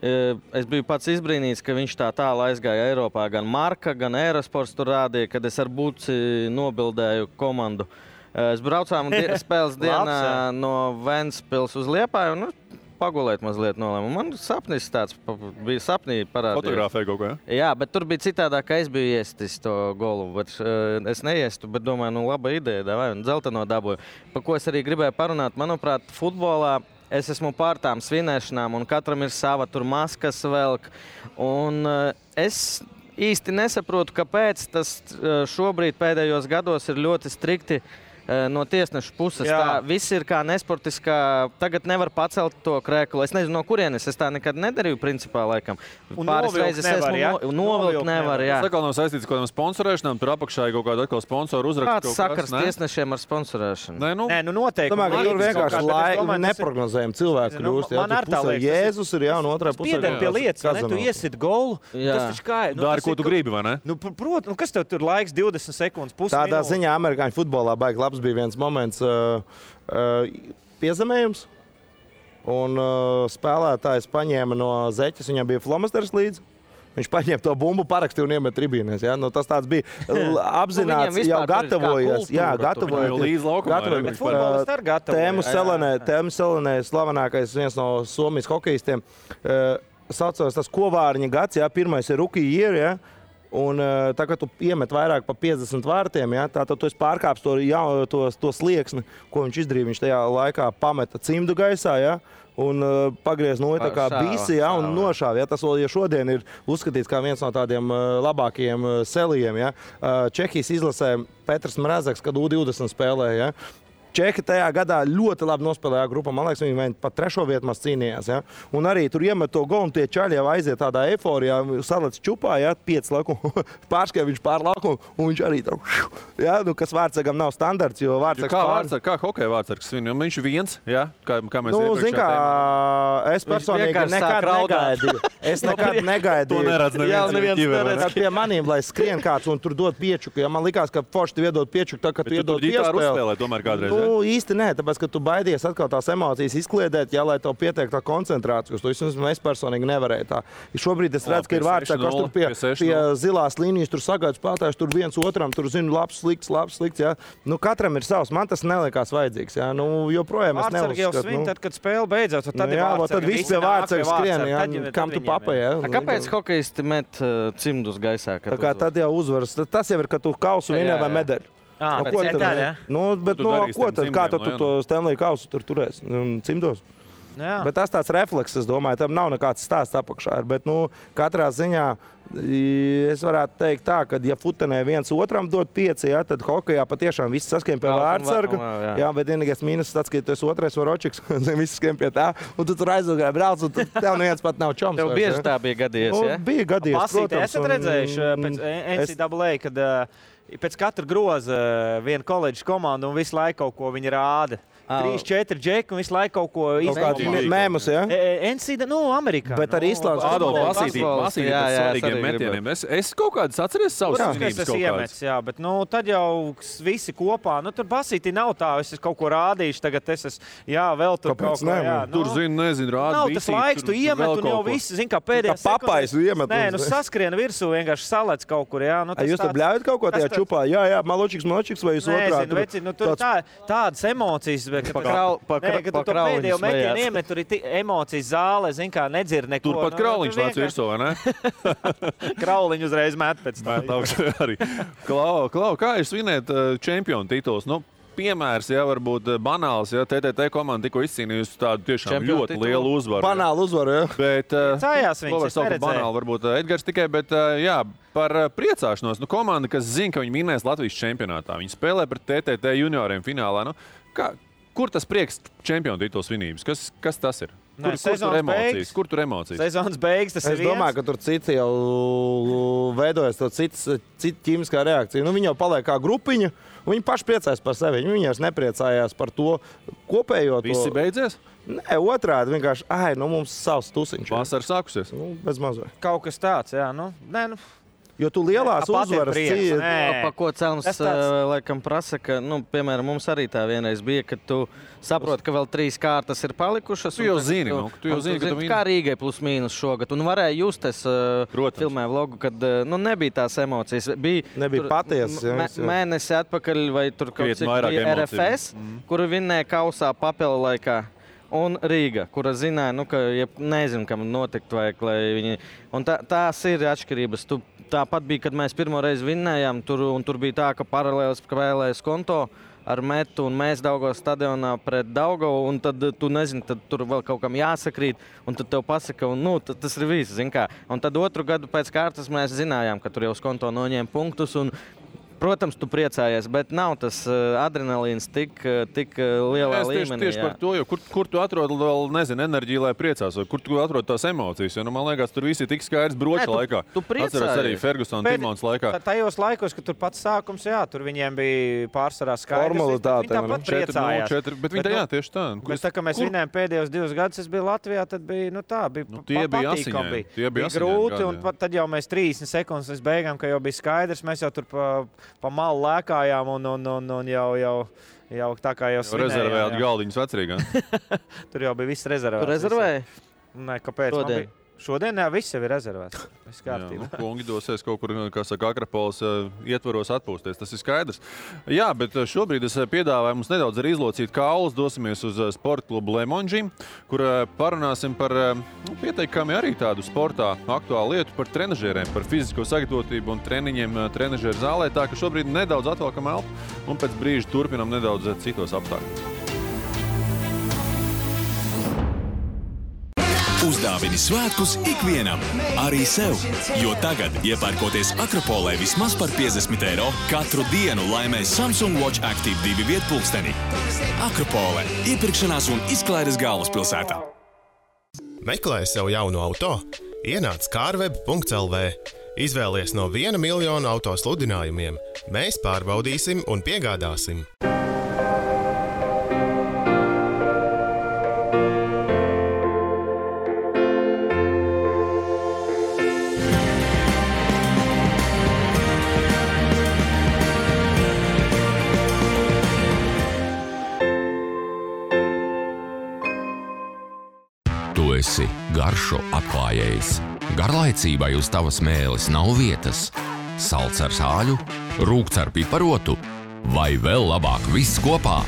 Es biju pats izbrīnīts, ka viņš tā tālu aizgāja Eiropā. Gan Marka, gan Aerosports tur rādīja, kad es ar Buci nobildēju komandu. Es braucām spēles dienā no Ventspils uz Liepāju un pagulēt mazliet nolēmu. Man sapnis tāds bija sapnī parādījis.
Fotografēja kaut ko, ja?
Jā, bet tur bija citādāk, ka es biju iestis to golu. Bet, es neiestu, bet domāju, laba ideja, vai un dzelteno dabūju. Pa ko es arī gribēju parunāt, manuprāt, futbolā es esmu pār tām svinēšanām un katram ir sava tur maskas velk. Un es īsti nesaprotu, kāpēc tas šobrīd pēdējos gados ir ļoti strikti no tiesnešu puses.
Jā.
Tā viss ir kā nesportiskā. Tagad nevar pacelt to krēklu. Es nezinu, no kurienes. Es tā nekad nedarīju, principā, laikam.
Un
Pāris
novilkt
reizes
nevar, ja?
novilkt nevar, jā.
Tas atkal nav saistīts ar kaut kādām sponsorēšanām, tur apakšā ir kaut kāda atkal sponsoru uzraksts.
Kāds sakars tiesnešiem ar sponsorēšanu?
Nē, noteikti.
Domāju, ka tur vienkārši neprognozējami cilvēki kļūst.
Man ar tā liekas.
Jēzus ir, jā, un otrā pusē.
Piedēļ pie lietas, ne? Tu iesit golu. Tas taču kā ir.
Dari, ko tu gribi, vai ne?
Protams, kas tev tur laiks 20 sekundes, pusi
Tādā
minūte?
ziņā amerikāņu futbolā baigi labs bija viens moments piezemējums. Un spēlētājs paņēma no zeķes, viņam bija flomasters līdzi. Viņš paņēma to bumbu, parakstīja un iemet tribīnēs. Ja? Tas tāds bija apzināts, jau gatavojies. Jā, gatavojies. Tēmu Selenē, slavenākais viens no Somijas hokejistiem, saucās tas Kovārņa gads, jā, pirmais ir rookie year, ja? Un tā, kad tu iemet vairāk pa 50 vārtiem, ja, tad tu esi pārkāpis to slieksni, ko viņš izdarīja. Viņš tajā laikā pameta cimdu gaisā, ja, un pagriez tā kā bisi, ja, un nošāva. Ja. Tas vēl šodien ir uzskatīts kā viens no tādiem labākajiem selijiem. Ja. Čehijas izlasē Petrs Mrazeks, kad U20 spēlēja. Ja. Čehi tajā gadā ļoti labi nospēlēja grupā. Man liekas, viņi pat 3. vietu maz cīnījās. Ja? Un arī tur iemet to golu, un tie čaļi jau aiziet tādā eiforijā, salec čupā, ja? 5 laukumu, pārskrēja viņš pār laukumu, un viņš arī tā, ja? Nu, kas Vārtsargam nav standarts, jo Vārtsargs
kā hokeja Vārtsargs svin? Viņš viens, ja? Kā mēs
zin kā, es personīgi nekad negaidīju. Es nekad negaidīju.
To neredz neviens.
Pie manīm, lai skrien kāds un tur dod piečuku. Ja? Man likās, ka forši tu iedod piečuku, tā, ka tu iedod piespēli. Īsti nē, tāpēc, ka tu baidies atkal tās emocijas izkliedēt, ja, lai tev pietiek tā koncentrācija. To es personīgi nevarēju tā. Šobrīd es redzu, ka ir vārds, kas tur pie zilās līnijas, tur sagaida spēlētājs, tur viens otram, tur zinu, labs, slikts. Ja. Nu, katram ir savs, man tas nelikās vajadzīgs. Ja. Nu, joprojām es neuzskatu.
Vārtsargi jau svin, tad, kad spēle beidzās, tad
tad viss pie Vārtsarga skrien, ja, kam tu papai. Ja.
Kāpēc hokejisti met cimdus gaisā?
Tad jau uzvaras. Tas jau ir, ka tu kausu vinē vai medaļu. Ko tad? Kā tu to Stanley kausu tur turēs? Cimdos?
Jā.
Bet tas tāds refleks, es domāju, tam nav nekāds stāsts apakšā. Bet, katrā ziņā es varētu teikt tā, ka, ja futenē viens otram dod 5, ja, tad hokejā patiešām viss saskiem pie Vārtsarga. Jā, bet vienīgais mīnus tāds, ka tu esi otrais varočiks, viss skiem pie tā, un tu tur aizgāji brauc, un tev neviens pat nav čoms.
Tev bieži tā bija gadījies, ja?
Bija gadījies,
protams. Esat redzējuši pēc NCAA, kad pēc katra groza viena koledžas komanda un visu laiku kaut ko viņi rāda. 3-4 džeki un visu laiku kaut ko
izdarīt. Mēmus, ja?
NCAA, Amerikā.
Bet arī Islandes.
Pasītīt par svarīgiem metieniem. Es kaut kādas atceries savus svinības kaut kādas.
Jā, bet tad jau visi kopā. Tur basītī nav tā, es kaut ko rādīšu, tagad es esmu, vēl tur kaut ko.
Tur nezinu, rāda
nav tas laiks, tu iemet un jau visi, zin kā pēdējā
sekundes. Kā papais iemet.
Nē, saskrien virsū, vienkārši salec kaut kur, jā.
Jūs tur bļaujat kaut ko tajā čupā? Jā, maločiks, vai jūs otrā?
Nezinu, tur tādas emocijas. Kad tu to pēdējo metienu iemet, tur ir emocijas zāle, zin kā, nedzird neko.
Tur pat Krauliņš nāc virsū, vai ne?
Krauliņu uzreiz met pēc tā.
Klau, kā jūs svinēt čempionu tituls? Piemērs, ja varbūt banāls, ja TTT komanda tikko izcīnījusi tādu tiešām ļoti lielu uzvaru.
Banālu uzvaru, ja.
Bet,
cājās
viņus, es neredzēju. Banāli varbūt Edgars tikai, bet jā, par priecāšanos. Komanda, kas zina, ka viņi vinnēs Latvijas čempionātā. Viņi spēlē pret TTT junioriem finālā. Kur tas prieks čempionu tituls svinības? Kas tas ir? Kur tur emocijas?
Sezonas beigas, tas ir viens.
Es domāju, ka tur citi jau veidojas cita ķīmiskā reakcija. Viņi jau paliek kā grupiņa. Viņi paši priecājas par sevi. Viņi jau nepriecājās par to kopējo.
Visi beidzies?
Nē, otrādi vienkārši, mums savs tusiņš.
Vasara sākusies?
Bez mazliet.
Kaut kas tāds, jā.
Jo tu lielās uzvaras
Pa ko Celms laikam prasa, ka, piemēram, mums arī tā vienreiz bija, ka tu saproti, ka vēl 3 kārtas ir palikušas.
Tu jau zini, ka tu
kā Rīgai plus mīnus šogad. Un varēja just, es filmēju vlogu, kad nebija tās emocijas.
Nebija patiesas.
Mēnesi atpakaļ vai tur kaut cik bija RFS, kuru vinnēja kausā papila laikā. Un Rīga, kura zināja, ka nezinu, kam notikt vajag, lai viņi... Un tās ir atšķirības. Tāpat bija, kad mēs pirmo reizi vinnējām, un tur bija tā, ka paralēlis spēlējas konto ar Metu un mēs Daugavas stadionā pret Daugavu, un tad tu nezini, tad tur vēl kaut kam jāsakrīt, un tad tev pasaka, un tas ir viss, zin kā. Un tad otru gadu pēc kārtas mēs zinājām, ka tur jau uz konto noņēma punktus, un protams, tu priecājies, bet nav tas adrenalīns tik lielā līmenī.
Tieši par to, jo kur tu atrod vēl, nezinu, enerģiju, lai priecās, vai kur tu atrod tās emocijas, jo, man liekas, tur visi tik skaidrs broča laikā.
Tu priecājies.
Atceros arī Ferguson Timons laikā.
Tajos laikos, kad tur pats sākums, tur viņiem bija pārsvarā skaidrs.
Formalitāte.
Viņi tāpat priecājās.
Bet viņi tieši tā.
Bet tā, ka mēs vinnējām pēdējos 2 gadus, es biju Latvijā, tad bija,
tie bija
patīkami.
Tie bija
grūti, un tad jau mēs 30 sekundes līdz beigām, ka jau bija skaidrs, mēs jau tur pa malu lēkājām un jau tā kā jau svinējām.
Rezervējāt galdiņus vecrīgā.
Tur jau bija viss rezervēts.
Tu rezervēji?
Nē, kāpēc? Šodien viss jau ir rezervēts. Viss kārtībā.
Kungi dosies kaut kur, kā saka, Akrapoles ietvaros atpūsties. Tas ir skaidrs. Jā, bet šobrīd es piedāvāju mums nedaudz arī izlocīt kaulus. Dosimies uz sporta klubu Lemonži, kur parunāsim par pieteikami arī tādu sportā aktuālu lietu par trenažieriem, par fizisko sagatavotību un treniņiem trenažieru zālē. Tā ka šobrīd nedaudz atvelkam elpu un pēc brīža turpinam nedaudz citos apstākļos.
Uzdāvini svētkus ikvienam, arī sev, jo tagad, iepērkoties Akropolē vismaz par 50 eiro, katru dienu laimē Samsung Watch Active 2 vietpulksteni. Akropole – iepirkšanās un izklaides galvaspilsētā.
Meklē sev jaunu auto? Ienāc carweb.lv. Izvēlies no 1 miljonu auto sludinājumiem. Mēs pārbaudīsim un piegādāsim.
Tu esi garšu atklājējs. Garlaicībai uz tavas mēles nav vietas. Salds ar sāļu, rūgts ar piparotu vai vēl labāk viss kopā.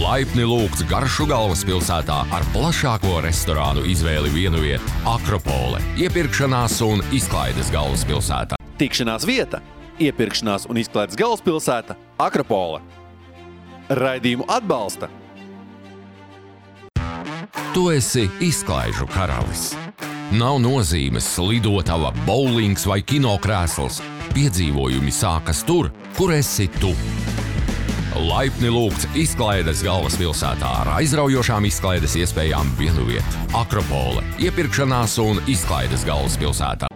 Laipni lūgts garšu galvaspilsētā ar plašāko restorānu izvēli vienviet Akropole, iepirkšanās un izklaides galvaspilsētā.
Tikšanās vieta, iepirkšanās un izklaides galvaspilsēta Akropole. Raidījumu atbalsta.
Tu esi izklaižu karalis. Nav nozīmes lidotava, bowlings vai kinokrēsls. Piedzīvojumi sākas tur, kur esi tu. Laipni lūgts izklaides galvaspilsētā ar aizraujošām izklaides iespējām vienviet. Akropole, iepirkšanās un izklaides galvaspilsētā.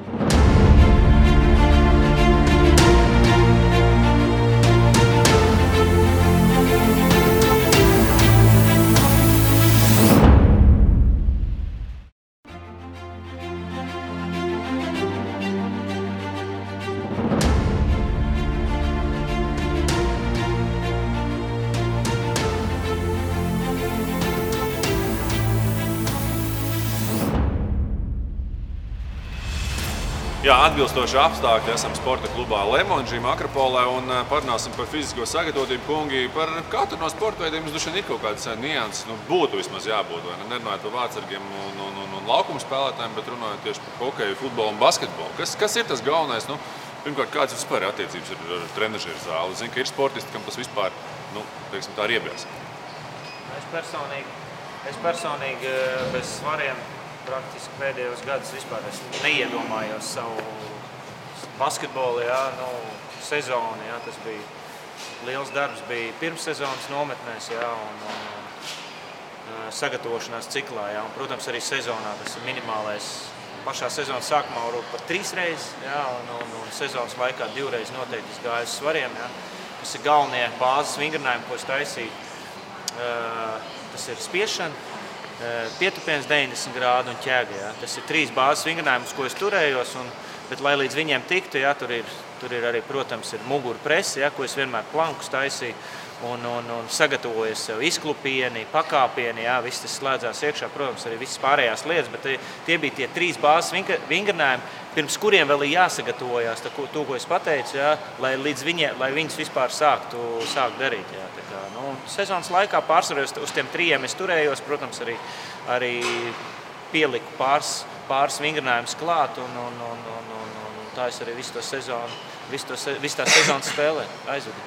Jā, atbilstoši apstākļi esam sporta klubā Lemonži, Akropolē un parunāsim par fizisko sagatavotību, kungi. Par katru no sporta veidiem mums ir kaut kāds nianses, būtu vismaz jābūt. Nerunājot par vārtsargiem un laukuma spēlētājiem, bet runājot tieši par hokeju, futbolu un basketbolu. Kas ir tas galvenais? Pirmkārt, kādas vispār ir attiecības ar trenažieru zāli? Zinu, ka ir sportisti, kam tas vispār, teiksim, tā ir iebies.
Es personīgi bez svariem praktiski pēdējos gadus vispār es neiedomājos savu basketbolu, sezonu. Tas bija liels darbs, bija pirmssezonas nometnēs, un sagatavošanās ciklā. Un, protams, arī sezonā tas ir minimālais. Pašā sezonas sākumā varbūt pat 3 reizes, un sezonas laikā 2 reizes noteikti gāju uz svariem. Tas ir galvenie bāzes vingrinājumi, ko es taisīju. Tas ir spiešana, pietupiens 90 grādu un ķēga. Tas ir 3 bāzes vingrinājumus, ko es turējos. Un Bet, lai līdz viņiem tiktu, jā, tur ir arī, protams, ir muguru presi, jā, ko es vienmēr plankus taisīju un sagatavoju sev izklupieni, pakāpieni, jā, viss tas slēdzās iekšā, protams, arī visas pārējās lietas, bet tie bija tie 3 bāzes vingrinājumi, pirms kuriem vēl ir jāsagatavojās, to, ko es pateicu, jā, lai viņus vispār sākt darīt. Jā, tā kā, sezonas laikā pārsvarā uz tiem 3 es turējos, protams, arī pieliku pāris vingrinājumus klāt, un tā es arī visu tā sezonas spēlē aizvedu.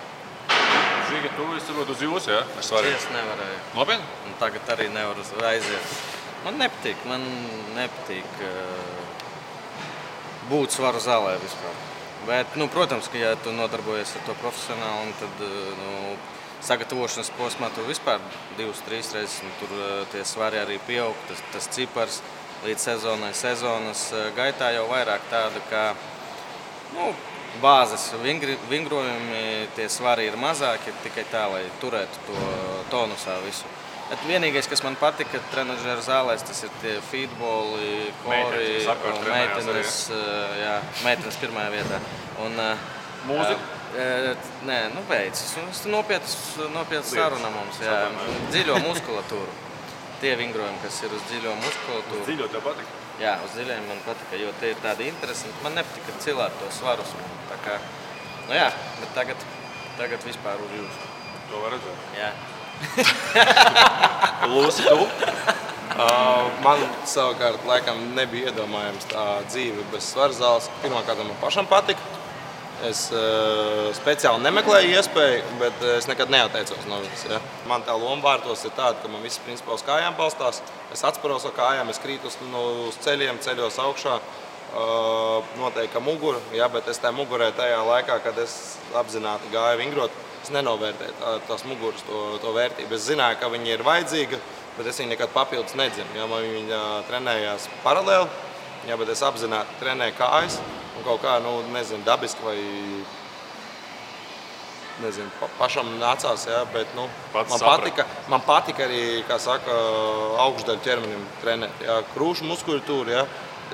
Žiga, tu esi varbūt uz jūsu, jā?
Es nevarēju.
Nopietni?
Un tagad arī nevaru aiziet. Man nepatīk būt svaru zālē vispār. Bet, protams, ka ja tu nodarbojies ar to profesionāli, tad sagatavošanas posmā tu vispār 2-3 reizes, tur tie svari arī pieaug, tas cipars līdz sezonas gaitā jau vairāk tāda, kā bāzes vingrojumi, tie svari ir mazāki, tikai tā, lai turētu to tonusā visu. Bet vienīgais, kas man patika trenažera zālēs, tas ir tie feedboli, kori un meitenes pirmajā vietā.
Mūzika?
Nē, beidzas. Tas nopietnas saruna mums, jā. Dziļo muskulatūru. Tie vingrojumi, kas ir uz dziļo muskulatūru.
Uz dziļo tev patika?
Jā, uz dziļiem man patika, jo tie ir tādi interesanti. Man nepatika cilāt to svarus. Tā kā, bet tagad vispār uz jūsu.
To var redzēt?
Jā.
Lūsi, tu?
Man savukārt laikam nebija iedomājams tā dzīve bez svarzāles. Pirmkārt, man pašam patika. Es speciāli nemeklēju iespēju, bet es nekad neatteicos no viņas. Ja. Man tā loma vārtos ir tāda, ka man viss principā uz kājām balstās. Es atsparos ar kājām, es krītu uz ceļiem, ceļos augšā. Noteikti, ka mugura, ja, bet es tajā mugurē tajā laikā, kad es apzināti gāju vingrot, es nenovērtēju tās muguras to vērtību. Es zināju, ka viņa ir vajadzīga, bet es viņu nekad papildus nedzinu. Ja, man viņa trenējās paralēli, ja, bet es apzināti trenēju kājas. Un kaut kā, dabiski vai, pašam nācās, jā, bet, man patika arī, kā saka, augšdaļu ķermenim trenēt, jā, krūšu muskulatūru, jā.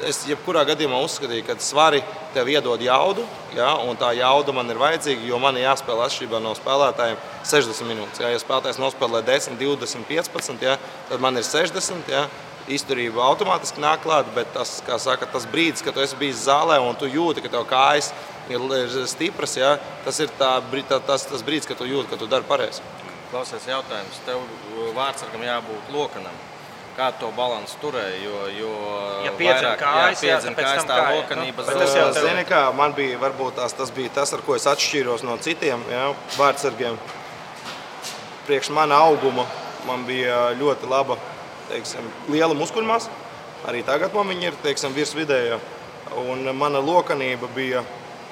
Es jebkurā gadījumā uzskatīju, ka svari tev iedod jaudu, jā, un tā jauda man ir vajadzīga, jo man ir jāspēlē atšķirībā no spēlētājiem 60 minūtes, jā. Ja spēlētājs nospēlē 10, 20, 15, jā, tad man ir 60, jā. Izturība automātiski nāk klāt, bet tas, kā saka, tas brīdis, kad tu esi bijis zālē un tu jūti, ka tev kājas ir stipras, ja, tas ir tas brīdis, kad tu jūti, ka tu dari pareizi.
Klausies jautājums. Tev vārdsargam jābūt lokanam. Kā to balansu turēja, jo
piedzina kājas,
tā lokanība
zūd. Zini kā, man bija, varbūt tas bija tas, ar ko es atšķīros no citiem, ja, vārdsargiem. Priekš mana auguma man bija ļoti laba, liela muskuļmasa. Arī tagad man viņa ir, virs vidēja. Un mana lokanība bija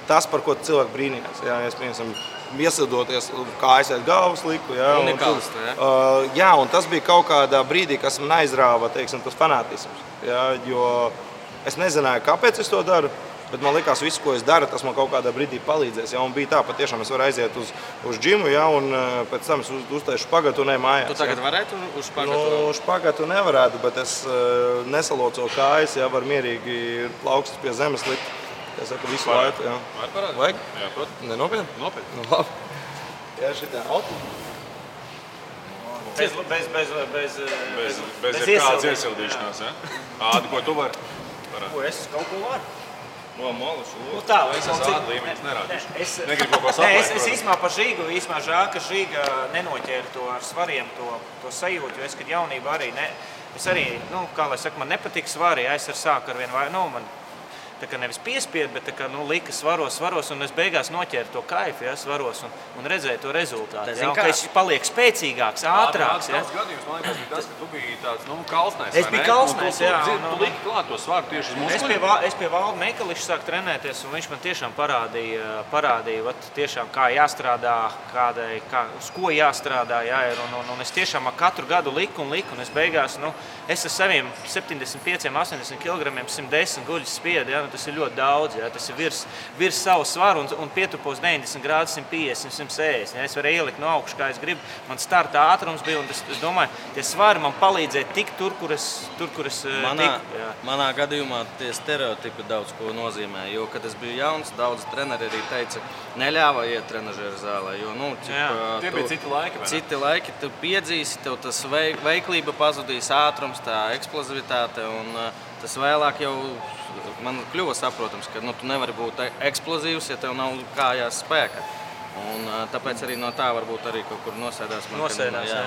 tas, par ko cilvēki brīnījās. Jā, es, piemēram, iesildoties kājas aiz galvas liku. Jā, un tas bija kaut kādā brīdī, kas man aizrāva, tas fanātisms. Jā, jo es nezināju, kāpēc es to daru. Bet man likās, visu, ko es daru, tas man kaut kādā brīdī palīdzēs. Ja? Un bija tā, patiešām es varu aiziet uz džimu, ja? Un pēc tam es uztaišu špagatu un eju mājās.
Tu tagad varētu uz špagatu?
Uz špagatu nevarētu, bet es nesaloco kājas, ja? Var mierīgi plaukstas pie zemes likt. Es saku visu laiku. Ja?
Vajag? Jā, protams.
Nenopietni?
Nopietni.
Labi. Jā, šitā auto.
Bez kādas iesildīšanās, ja? Ādi, ko tu vari?
Ko es kaut ko varu?
Tā, es esmu āda līmenis nerādīšu. Negribu kaut ko saplēt.
Es īsmā par Žīgu, žēl, ka Žīga nenoķēra to ar svariem, to sajūtu, jo es, kad jaunībā arī, es arī, kā lai saka, man nepatīk svari, ja es sāku ar vienu man tā kā nevis piespied, bet tā kā, lika svaros, un es beigās noķēru to kaifu, ja, svaros un redzēju to rezultātu. Ja, ka es paliek spēcīgāks, ātrāks. Ja.
Tas gadījums, man liekas, bija tas, ka tu biji tāds, kalsnais,
es biju kalsnais, jā.
Tu liki klāt to svaru tieši uz muskuļiem.
Es pie Valda Meikališa sāku trenēties, un viņš man tiešām parādīja tiešām, kā jāstrādā, uz ko jāstrādā, jā, un es tiešām katru gadu liku, un es beigās, es ar saviem 75, 80 kg 110 guļus spiedu, ja, tas ir ļoti daudz. Ja? Tas ir virs savu svaru un pietupos 90 grādus, 150, 160. Ja? Es varu ielikt no augšas, kā es gribu. Man starta ātrums bija, un es domāju, tie svari man palīdzēja tikt tur, kur es tiku. Ja?
Manā gadījumā tie stereotipi daudz ko nozīmē, jo, kad es biju jauns, daudz treneri arī teica, neļāva iet trenažera zālē, jo,
tie bija citi laiki, vai ne?
Citi laiki, tu piedzīsi, tev tas veiklība pazudīs, ātrums, tā eksplozivitāte, un tas vēlāk jau man kļuva saprotams, ka tu nevari būt eksplozīvs, ja tev nav kājās spēka. Un tāpēc arī no tā varbūt arī kaut kur nosēdās,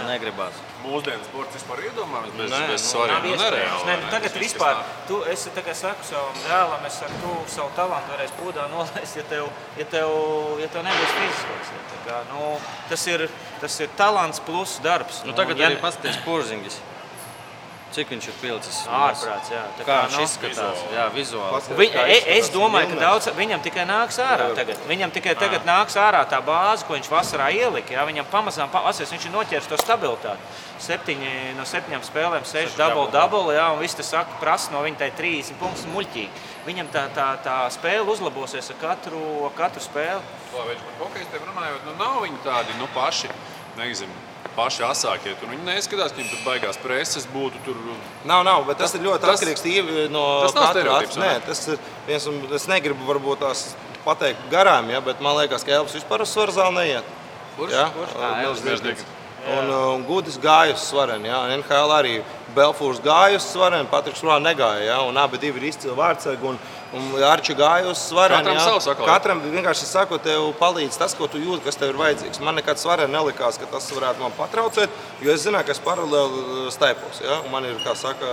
negribās.
Mūsdienu sports vispār iedomājams bez svariem nereāli.
Tagad vispār, es tagad saku savam dēlam, es saku, tu savu talantu varēs pūdā nolaist, ja tev nebūs fiziskos. Ja, tas ir talants plus darbs.
Tagad arī paskaties Porzingis. Cik viņš ir pilicis?
Ārprāts, jā.
Kā viņš izskatās? Jā, vizuāli.
Es domāju, ka daudz viņam tikai nāks ārā tagad. Viņam tikai tagad nāks ārā tā bāze, ko viņš vasarā ielika. Jā. Viņam pamazām, viņš ir noķēris to stabilitāti. 7 no 7 spēlēm, 6 double, jā, un viss tas prasa no viņa tai 30 punktus muļķīgi. Viņam tā spēle uzlabosies ar katru spēli.
Viņš par hokejs tev runājot, nav viņi tādi, paši, paši asākie. Tur viņi neskatās, ka viņiem tur baigās preses būtu tur.
Nav, bet tas ir ļoti atkarīgs no katra. Nē, tas ir viens, un es negribu varbūt tās pateikt garām, ja, bet man liekas, ka Elvis vispār uz svaru zāli neiet.
Kurš?
Un Gudis gāja uz svareni, ja. NHL arī Belfūrs gāja uz svareni, Patriks Rā negāja, ja, un abi divi ir izcili vārdsargi, un Arči gāja uz svareni.
Katram savu sakot.
Katram vienkārši sako, tev palīdz tas, ko tu jūti, kas tev ir vajadzīgs. Man nekad svareni nelikās, ka tas varētu man patraucēt, jo es zināju, ka es paralēli staipos, ja, un man ir, kā saka,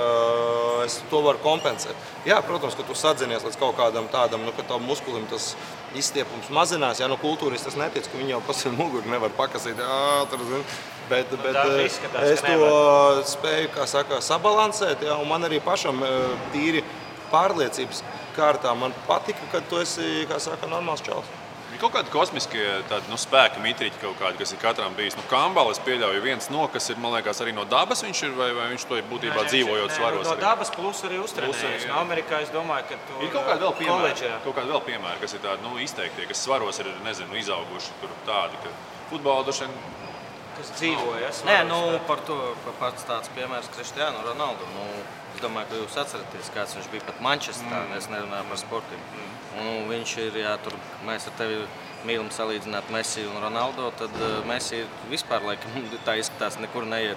es to varu kompensēt. Jā, protams, ka tu sadzinies līdz kaut kādam tādam, ka tavu muskulim tas izstiepums mazinās, ja, kultūris tas netic, ka viņi jau pasien muguri nevar pakasīt, bet es to spēju, kā saka, sabalansēt, ja, un man arī pašam tīri pārliecības kārtā man patika, kad tu esi, kā saka, normāls čals.
Ir kaut kādi kosmiskie spēka mitriķi kaut kādi, kas ir katram bijis. Kambala es pieļauju viens kas ir, man liekas, arī no dabas viņš ir, vai viņš to ir būtībā dzīvojot svaros?
No dabas plus arī uztrenējis. No Amerikā es domāju, ka tu
ir kaut kādi vēl piemēri, kas ir tādi, izteiktie, kas svaros ir, izauguši tur tādi, ka futbola dušien
kas dzīvoja.
Par to pats tāds piemērs Kristiānu Ronaldu. Es domāju, ka jūs atceraties, kāds viņš bija pat Manchesterā, es nerunāju par sportiem. Viņš ir, tur mēs ar tevi mīlam salīdzināt Messi un Ronaldo, tad Messi vispār, laikam, tā izskatās, nekur neiet.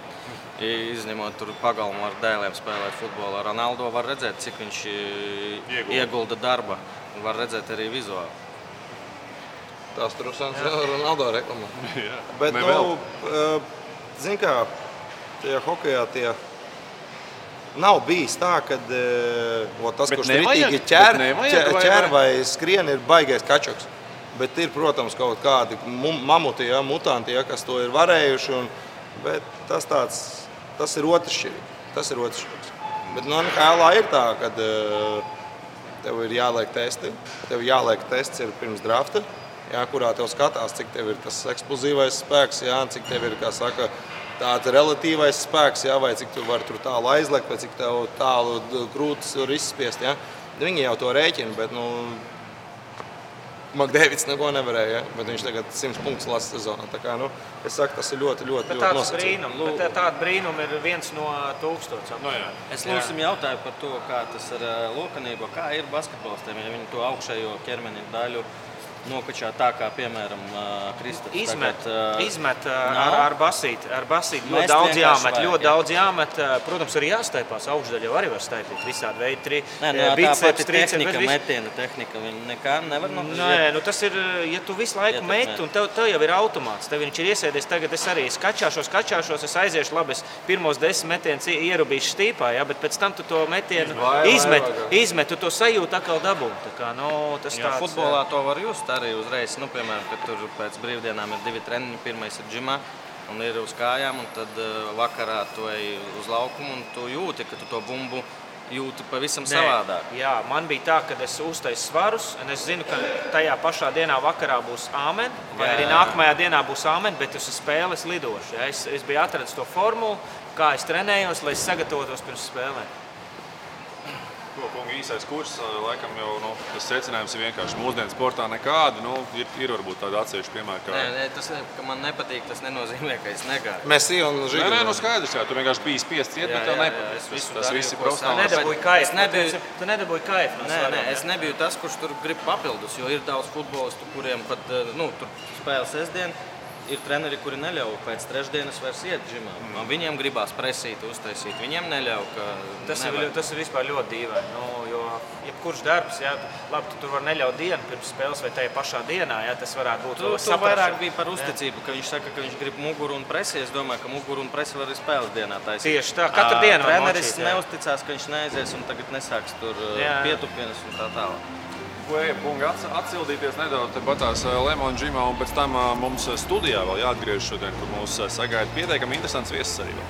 Izņemot tur pagalmu ar dēliem spēlēt futbolu. Ronaldo var redzēt, cik viņš iegulda darba. Var redzēt arī vizuāli.
Tās trusans Ronaldo reklamā. Bet, zin kā, tajā hokejā nav bijis tā, kad tas, kurš ritīgi ķer vai skrien, ir baigais kačoks. Bet ir, protams, kaut kādi mamuti, mutanti, kas to ir varējuši. Bet tas ir otršķirīgs. Bet NHL ir tā, kad tev ir jāliek testi. Tev jāliek tests ir pirms drafta. Jā, kurā tev skatās, cik tev ir tas eksplozīvais spēks, jā, cik tev ir, kā saka, tāds relatīvais spēks, jā, vai cik tu vari tur tālu aizlekt, vai cik tev tālu krūtis var izspiest. Jā. Viņi jau to rēķina, bet Makdēvids neko nevarēja, bet viņš tagad 100 punktus lasa sezonā. Tā kā, es saku, tas ir ļoti nosacīti.
Bet tāda brīnuma ir 1 no 1000.
Es lūsim jautāju par to, kā tas ar lokanību, kā ir basketbolistiem, ja viņi to augšējo ķermeni daļu nokačā tā, kā, piemēram, Kristaps.
Izmet ar basīti. Ļoti daudz jāmet. Protams, arī jāstaipās. Augšdaļa jau arī var staipīt. Visādi veidi.
Tā pati tehnika, metiena tehnika, viņi nekā nevar
nokļūt. Tas ir, ja tu visu laiku meti, un tev jau ir automāts. Tev viņš ir iesēdies. Tagad es arī skačāšos, es aiziešu labi, es pirmos 10 metienus ierubīšu stīpā, bet pēc tam tu to metienu izmet, tu to sajūti atkal dabūni.
Futbolā to var just. Arī uzreiz, piemēram, kad tur pēc brīvdienām ir 2 treniņi, pirmais ir džimā un ir uz kājām, un tad vakarā tu ej uz laukumu un tu jūti, ka tu to bumbu jūti pavisam savādāk.
Jā, man bija tā, ka es uztaisu svarus, un es zinu, ka tajā pašā dienā vakarā būs āmen, vai arī nākamajā dienā būs āmen, bet uz spēles lidošu. Ja? Es biju atradis to formulu, kā es trenējos, lai es sagatavotos pirms spēlēm.
Ko, kungi, īsais kurs, laikam jau tas secinājums ir vienkārši mūsdienu sportā nekāda. Ir varbūt tāda atsevišķa piemēra.
Nē, tas, ka man nepatīk, tas nenozīmē, ka es negāju.
Messi un Žiga.
Nē, skaidrs, jā, tu vienkārši biji spiests iet, bet tev nepatīk. Tas viss ir profesionāli.
Tu nedabūji kaifu.
Nē, es nebiju tas, kurš tur grib papildus, jo ir daudz futbolistu, kuriem pat tur spēle sestdien. Ir treneri, kuri neļauj pēc trešdienas vairs iet džimā. Viņiem gribās presīt, uztaisīt. Viņiem neļauj, ka
tas ir vispār ļoti dīvaini. Jo jebkurš darbs, jā, labi, tu tur var neļaut dienu pirms spēles vai tajā pašā dienā, jā, tas varētu būt
Tu vairāk bija par uzticību, ka viņš saka, ka viņš grib muguru un presi. Es domāju, ka muguru un presi var arī spēles dienā taisīt.
Tieši tā, katru dienu
treneris neuzticās, ka viņš neaizies un tagad nesāks tur pietupienas un tā tālāk.
Ko ejam, kungi, atsildīties nedaudz patās Lemon Gymā, un pēc tam mums studijā vēl jāatgriež šodien, kur mūs sagaida pietiekami interesants viesis arī vēl.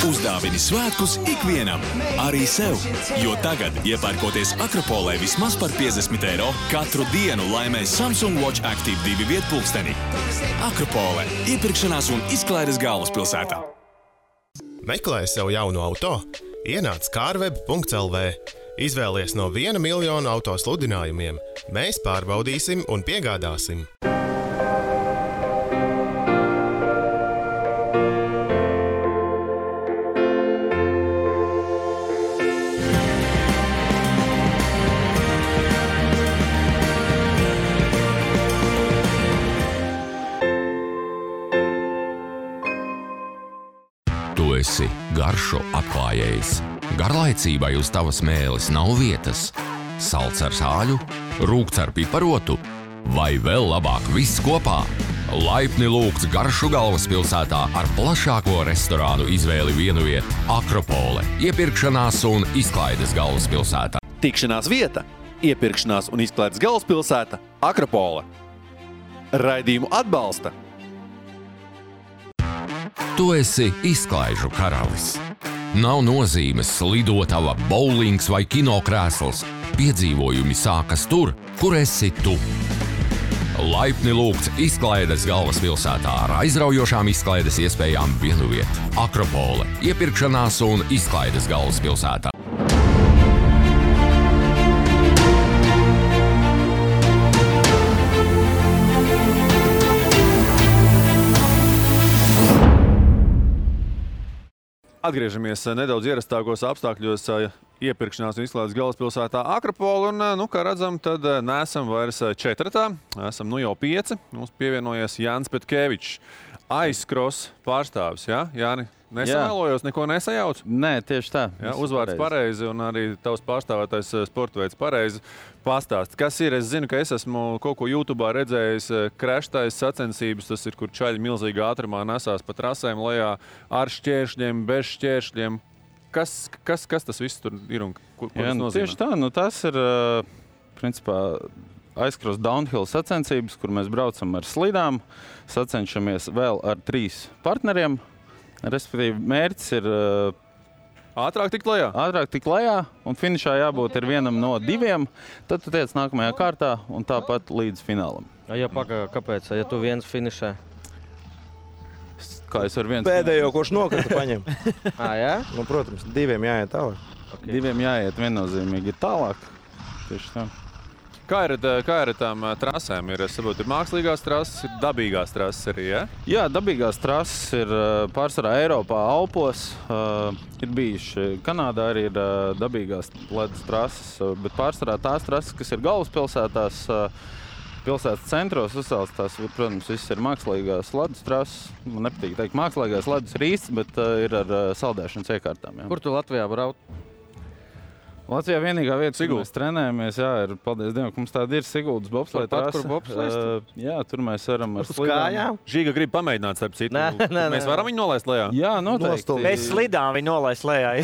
Uzdāvini svētkus ikvienam, arī sev, jo tagad, iepērkoties Akropolē vismaz par 50 eiro, katru dienu laimē Samsung Watch Active 2 vietpulksteni. Akropolē – iepirkšanās un izklaides galvaspilsētā.
Meklē sev jaunu auto? Ienāc carweb.lv. Izvēlies no 1 miljonu auto sludinājumiem. Mēs pārbaudīsim un piegādāsim.
Tu esi garšu atklājējs. Garlaicībai uz tavas mēles nav vietas. Salds ar sāļu, rūgts ar piparotu vai vēl labāk viss kopā. Laipni lūgts garšu galvaspilsētā ar plašāko restorānu izvēli vienu vietu Akropole, iepirkšanās un izklaides galvaspilsētā.
Tikšanās vieta, iepirkšanās un izklaides galvaspilsēta Akropole. Raidījumu atbalsta.
Tu esi izklaižu karalis. Nav nozīmes lidotava, bowlings vai kinokrēsls. Piedzīvojumi sākas tur, kur esi tu. Laipni lūgts izklaides galvaspilsētā ar aizraujošām izklaides iespējām vienu vietu. Akropole, iepirkšanās un izklaides galvaspilsētā.
Atgriežamies nedaudz ierastākos apstākļos iepirkšanās un izklaides galvaspilsētā Akropole. Un, kā redzam, tad neesam vairs 4. Esam jau 5. Mums pievienojies Jānis Petkevičs, aizkros pārstāvis. Ja? Jāni, nesamēlojos, neko nesajauc?
Nē, tieši tā.
Ja, uzvārds pareizi un arī tavs pārstāvētais sporta veids pareizi. Pastāst, kas ir? Es zinu, ka es esmu kaut ko YouTube'ā redzējis, kreštais sacensības, tas ir, kur čaļi milzīgā ātrumā nesās pa trasēm lejā ar šķēršļiem, bez šķēršļiem. Kas tas viss tur ir un ko tas nozīmē?
Tieši tā, tas ir, principā, aizkros downhill sacensības, kur mēs braucam ar slidām, sacenšamies vēl ar 3 partneriem. Respektīvi, mērķis ir
ātrāk tikt lejā?
Ātrāk tikt lejā, un finišā jābūt ir vienam no 2. Tad tu tiec nākamajā kārtā un tāpat līdz finālam.
Ja kāpēc? Ja tu viens finišē?
Kā es varu viens?
Pēdējo, kurš nokrita, paņem.
Jā?
Nu, protams, 2 jāiet tālāk.
Okay. 2 jāiet viennozīmīgi tālāk. Tieši tā.
Kā ir ar tām trasēm? Es saprotu, ir mākslīgās trases, ir dabīgās trases arī, ja?
Jā, dabīgās trases ir pārsvarā Eiropā, Alpos. Ir bijuši Kanādā arī ir dabīgās ledus trases, bet pārsvarā tās trases, kas ir galvaspilsētās, pilsētas centros uzsāls, tās, protams, viss ir mākslīgās ledus trases. Man nepatīk teikt mākslīgās ledus ir īsts, bet ir ar saldēšanas iekārtām. Jā.
Kur tu Latvijā brauc?
Latvijā vienīgā vieta, kur mēs trenējamies, ir, paldies Dievam, ka mums tāda ir Siguldas bobsleja trase. Jā, tur mēs varam ar slidām.
Žiga grib pamēģināt starp citu. Mēs varam viņu nolaist lejā?
Jā, noteikti.
Mēs slidām viņu nolaist lejā.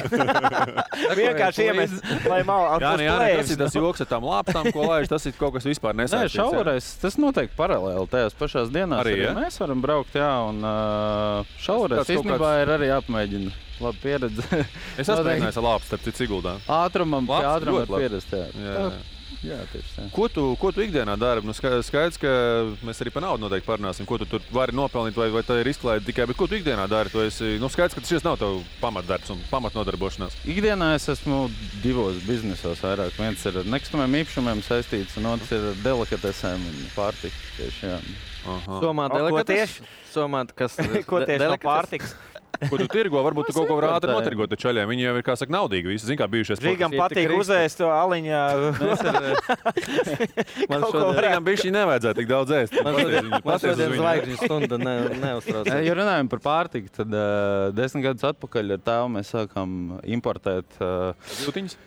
Vienkārši iemest, lai malā
kas ir tas joks ar tām lāpstām, ko laiž, tas ir kaut kas vispār nesaistīts.
Nē, šauvarais, tas noteikti paralēli tajās pašās dienās. Arī mēs varam braukt, jā, un šauvarais īstenībā ir arī jāpamēģina. Labi pieredze.
Es esmu mēģinājis ar lāpstu, starp citu Siguldā.
Ātrumam var pierast, jā. Jā, tieši tā.
Ko tu ikdienā dari? Nu, skaidrs, ka mēs arī par naudu noteikti parunāsim. Ko tu tur vari nopelnīt, vai tā ir izklaide tikai, bet ko tu ikdienā dari? Tu esi, skaidrs, ka šis nav tev pamatdarbs un pamatnodarbošanās.
Ikdienā es esmu 2 biznesos vairāk. Viens ir ar nekustamiem īpašumiem saistīts, un otrs ir ar delikatesēm un pārtiku. Tieši, jā.
Somā delikates? Somā, kas
ko tieši no pārtiks?
Ko tu tirgo? Varbūt tu kaut ko var ātri notirgot ar čaļiem. Viņi jau ir, kā saka, naudīgi. Visi, zin, kā bijušies.
Rīgam patīk uzēst to aliņā.
Man šodien bišķi nevajadzētu tik daudz ēst.
Man šodien zvaigžņu stunda neuztrauc.
Ja runājam par pārtiku, tad 10 gadus atpakaļ ar tēvu mēs sākām importēt
jūtiņas.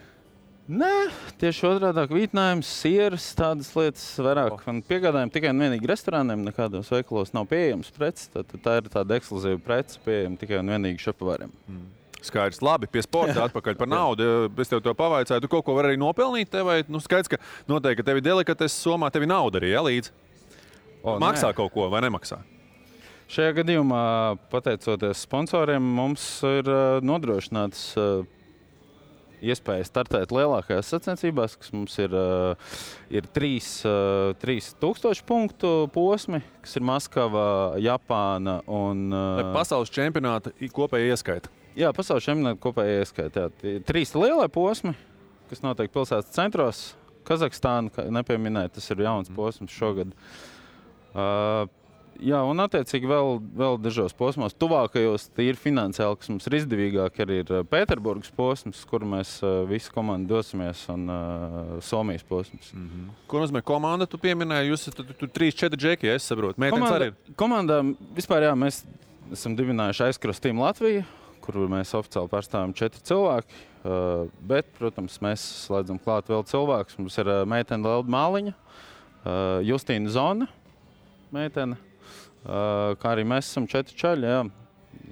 Nē, tieši otrādāk vītinājums, sieras, tādas lietas vairāk. Un piegādājam tikai un vienīgi restorāniem, nekādos veikalos nav pieejams preces. Tā ir tāda ekskluzīva prece pieejama tikai un vienīgi šefpavāriem.
Skaidrs, labi, pie sporta atpakaļ par naudu. Es tev to pavaicāju, tu kaut ko vari arī nopelnīt tev, vai skaidrs, ka noteikti, ka tevi delikates Somā, tevi nauda arī, ja, līdz? Maksā kaut ko vai nemaksā?
Šajā gadījumā, pateicoties sponsoriem, mums ir nodrošināts iespēja startēt lielākajās sacensībās, kas mums ir 3000 punktu posmi, kas ir Maskava, Japāna un...
Pasaules čempionāta kopēja ieskaita.
Jā, pasaules čempionāta kopēja ieskaita. 3 lielie posmi, kas notiek pilsētas centros. Kazahstāna, kā nepieminēja, tas ir jauns posms šogad. Jā, un attiecīgi vēl dažos posmos. Tuvākajos tīri finansiāli, kas mums ir izdevīgāk, arī ir Pēterburgas posms, kur mēs visi komandi dosimies, un Somijas posms.
Ko nozīmē komanda? Tu pieminēji, jūs tur 3-4 džeki, ja es saprotu. Meitenes arī ir?
Komandā vispār, jā, mēs esam dibinājuši Aizkros Team Latviju, kur mēs oficiāli pārstāvam 4 cilvēki. Bet, protams, mēs slēdzam klāt vēl cilvēkus. Mums ir meitene Lelda Māliņa, Justīna Zona, meitene. Kā arī mēs esam 4 čaļi, jā.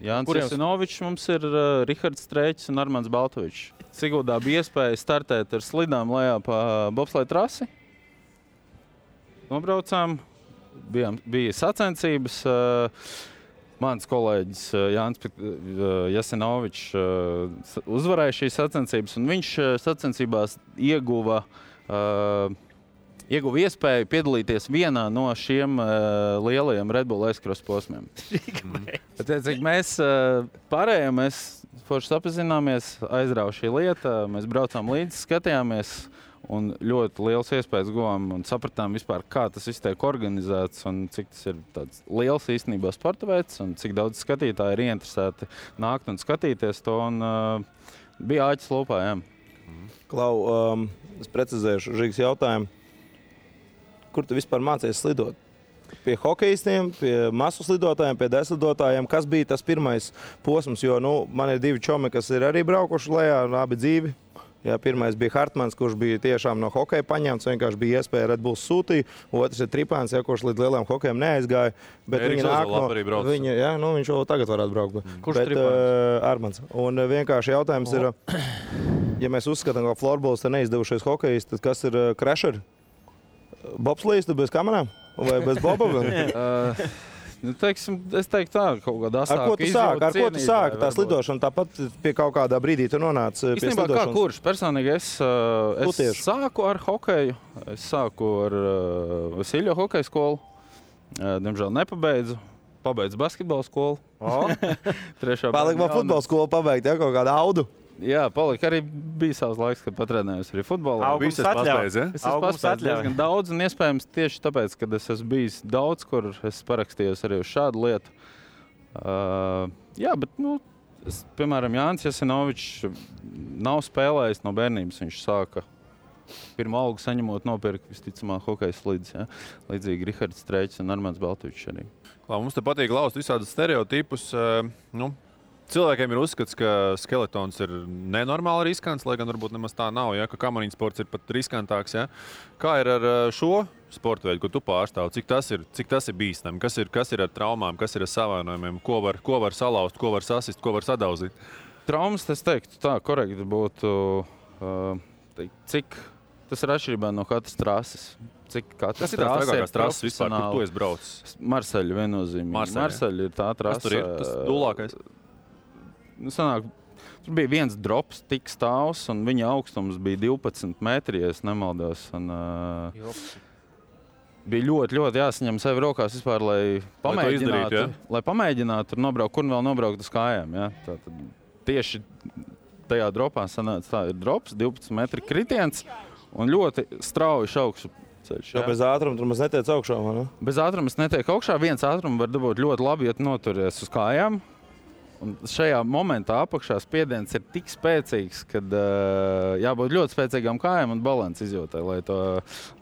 Jānis Jasinovičs, mums ir Rihards Strēķis un Armands Baltovičs. Siguldā bija iespēja startēt ar slidām lejā pa bobsleja trasi. Nobraucām, bija sacensības. Mans kolēģis Jānis Jasinovičs uzvarēja šīs sacensības, un viņš sacensībās ieguva iespēju piedalīties vienā no šiem lielajiem Red Bull Aizkros posmiem. Mēs pārējām, mēs forši sapazināmies, aizrauja šī lieta, mēs braucām līdzi, skatījāmies un ļoti liels iespējas guvām un sapratām vispār, kā tas viss tiek organizēts un cik tas ir tāds liels īstenībā sporta veids un cik daudz skatītāji ir ieinteresēti nākt un skatīties to un bija āķis lūpā, jā.
Klau, es precizēšu Žigas jautājumu. Kur tu vispār mācies slidot? Pie hokejistiem, pie masu slidotājiem, pie deslidotājiem. Kas bija tas pirmais posms? Jo man ir 2 čomi, kas ir arī braukuši lejā, abi dzīvi. Jā, pirmais bija Hartmans, kurš bija tiešām no hokeja paņemts. Vienkārši bija iespēja Red Bulls sūtīt. Otrs ir Tripāns, kurš līdz lielajām hokejām neaizgāja. Bet viņi nāk no viņa, jā, viņš jau tagad varētu braukt.
Kurš Tripāns?
Armans. Un vienkārši jautājums ir, ja mēs uzskatām, ka florbols te neizdevušies hokejisti, tad kas ir crasheri? Bobslīds, tu bez kamerām? Vai bez boba?
Es teiktu tā, kaut kādā asāka
izjauta. Ar ko tu sāki? Tā slidošana tāpat pie kaut kādā brīdī tu nonāc pie
slidošanas? Īstenībā kā kurš? Personīgi es sāku ar hokeju. Es sāku ar Vasiljo hokeja skolu. Diemžēl nepabeidzu. Pabeidzu basketbola skolu.
Palika vēl futbola skolu pabeigt, ja? Kaut kādu audu?
Jā, palika arī bija savs laiks, kad patrenējos arī futbolā.
Augums atļauj.
Es esmu paspējis diezgan daudz, un iespējams tieši tāpēc, kad es esmu bijis daudz, kur es parakstījos arī uz šādu lietu. Jā, bet, piemēram, Jānis Jasinovičs nav spēlējis no bērnības. Viņš sāka pirmo algu saņemot nopirkt, visticamāk, hokeja slidus. Ja? Līdzīgi Rihards Strēķis un Armands Baltovičs arī.
Mums te patīk laust visādus stereotipus. Cilvēkiem ir uzskats, ka skeletons ir nenormāli riskants, lai gan varbūt nemaz tā nav, ja? Ka kamariņu sports ir pat riskantāks. Ja? Kā ir ar šo sporta veidu, ko tu pārstāv? Cik tas ir bīstami? Kas ir ar traumām, kas ir ar savainojumiem? Ko var salauzt, ko var sasist, ko var sadauzīt?
Traumas, es teiktu, tā korekti būtu, cik tas ir atšķirībā no katras trases.
Kas ir tās trakākās trases vispār, kur tu esi braucis?
Marseļa viennozīmīgi. Marseļa ir tā trase.
Kas tur ir? Tas dūlākais?
Sanāk, Tur bija viens drops, tik stāvs, un viņa augstums bija 12 metri, ja es nemaldos. Un, bija ļoti jāsaņem sevi rokās vispār, lai pamēģinātu tur nobraukt, kur vēl nobraukt uz kājām. Ja? Tātad tieši tajā dropā sanāca tā ir drops, 12 metri kritiens un ļoti strauji augšu ceļš.
Ja bez ātruma tur maz netiec augšā, vai ne?
Bez ātruma es netiek augšā. Viens ātrums var dabūt ļoti labi, ja tu noturies uz kājām. Un šajā momentā apakšā spiediens ir tik spēcīgs, ka jābūt ļoti spēcīgām kājām un balanss izjūtai, lai to,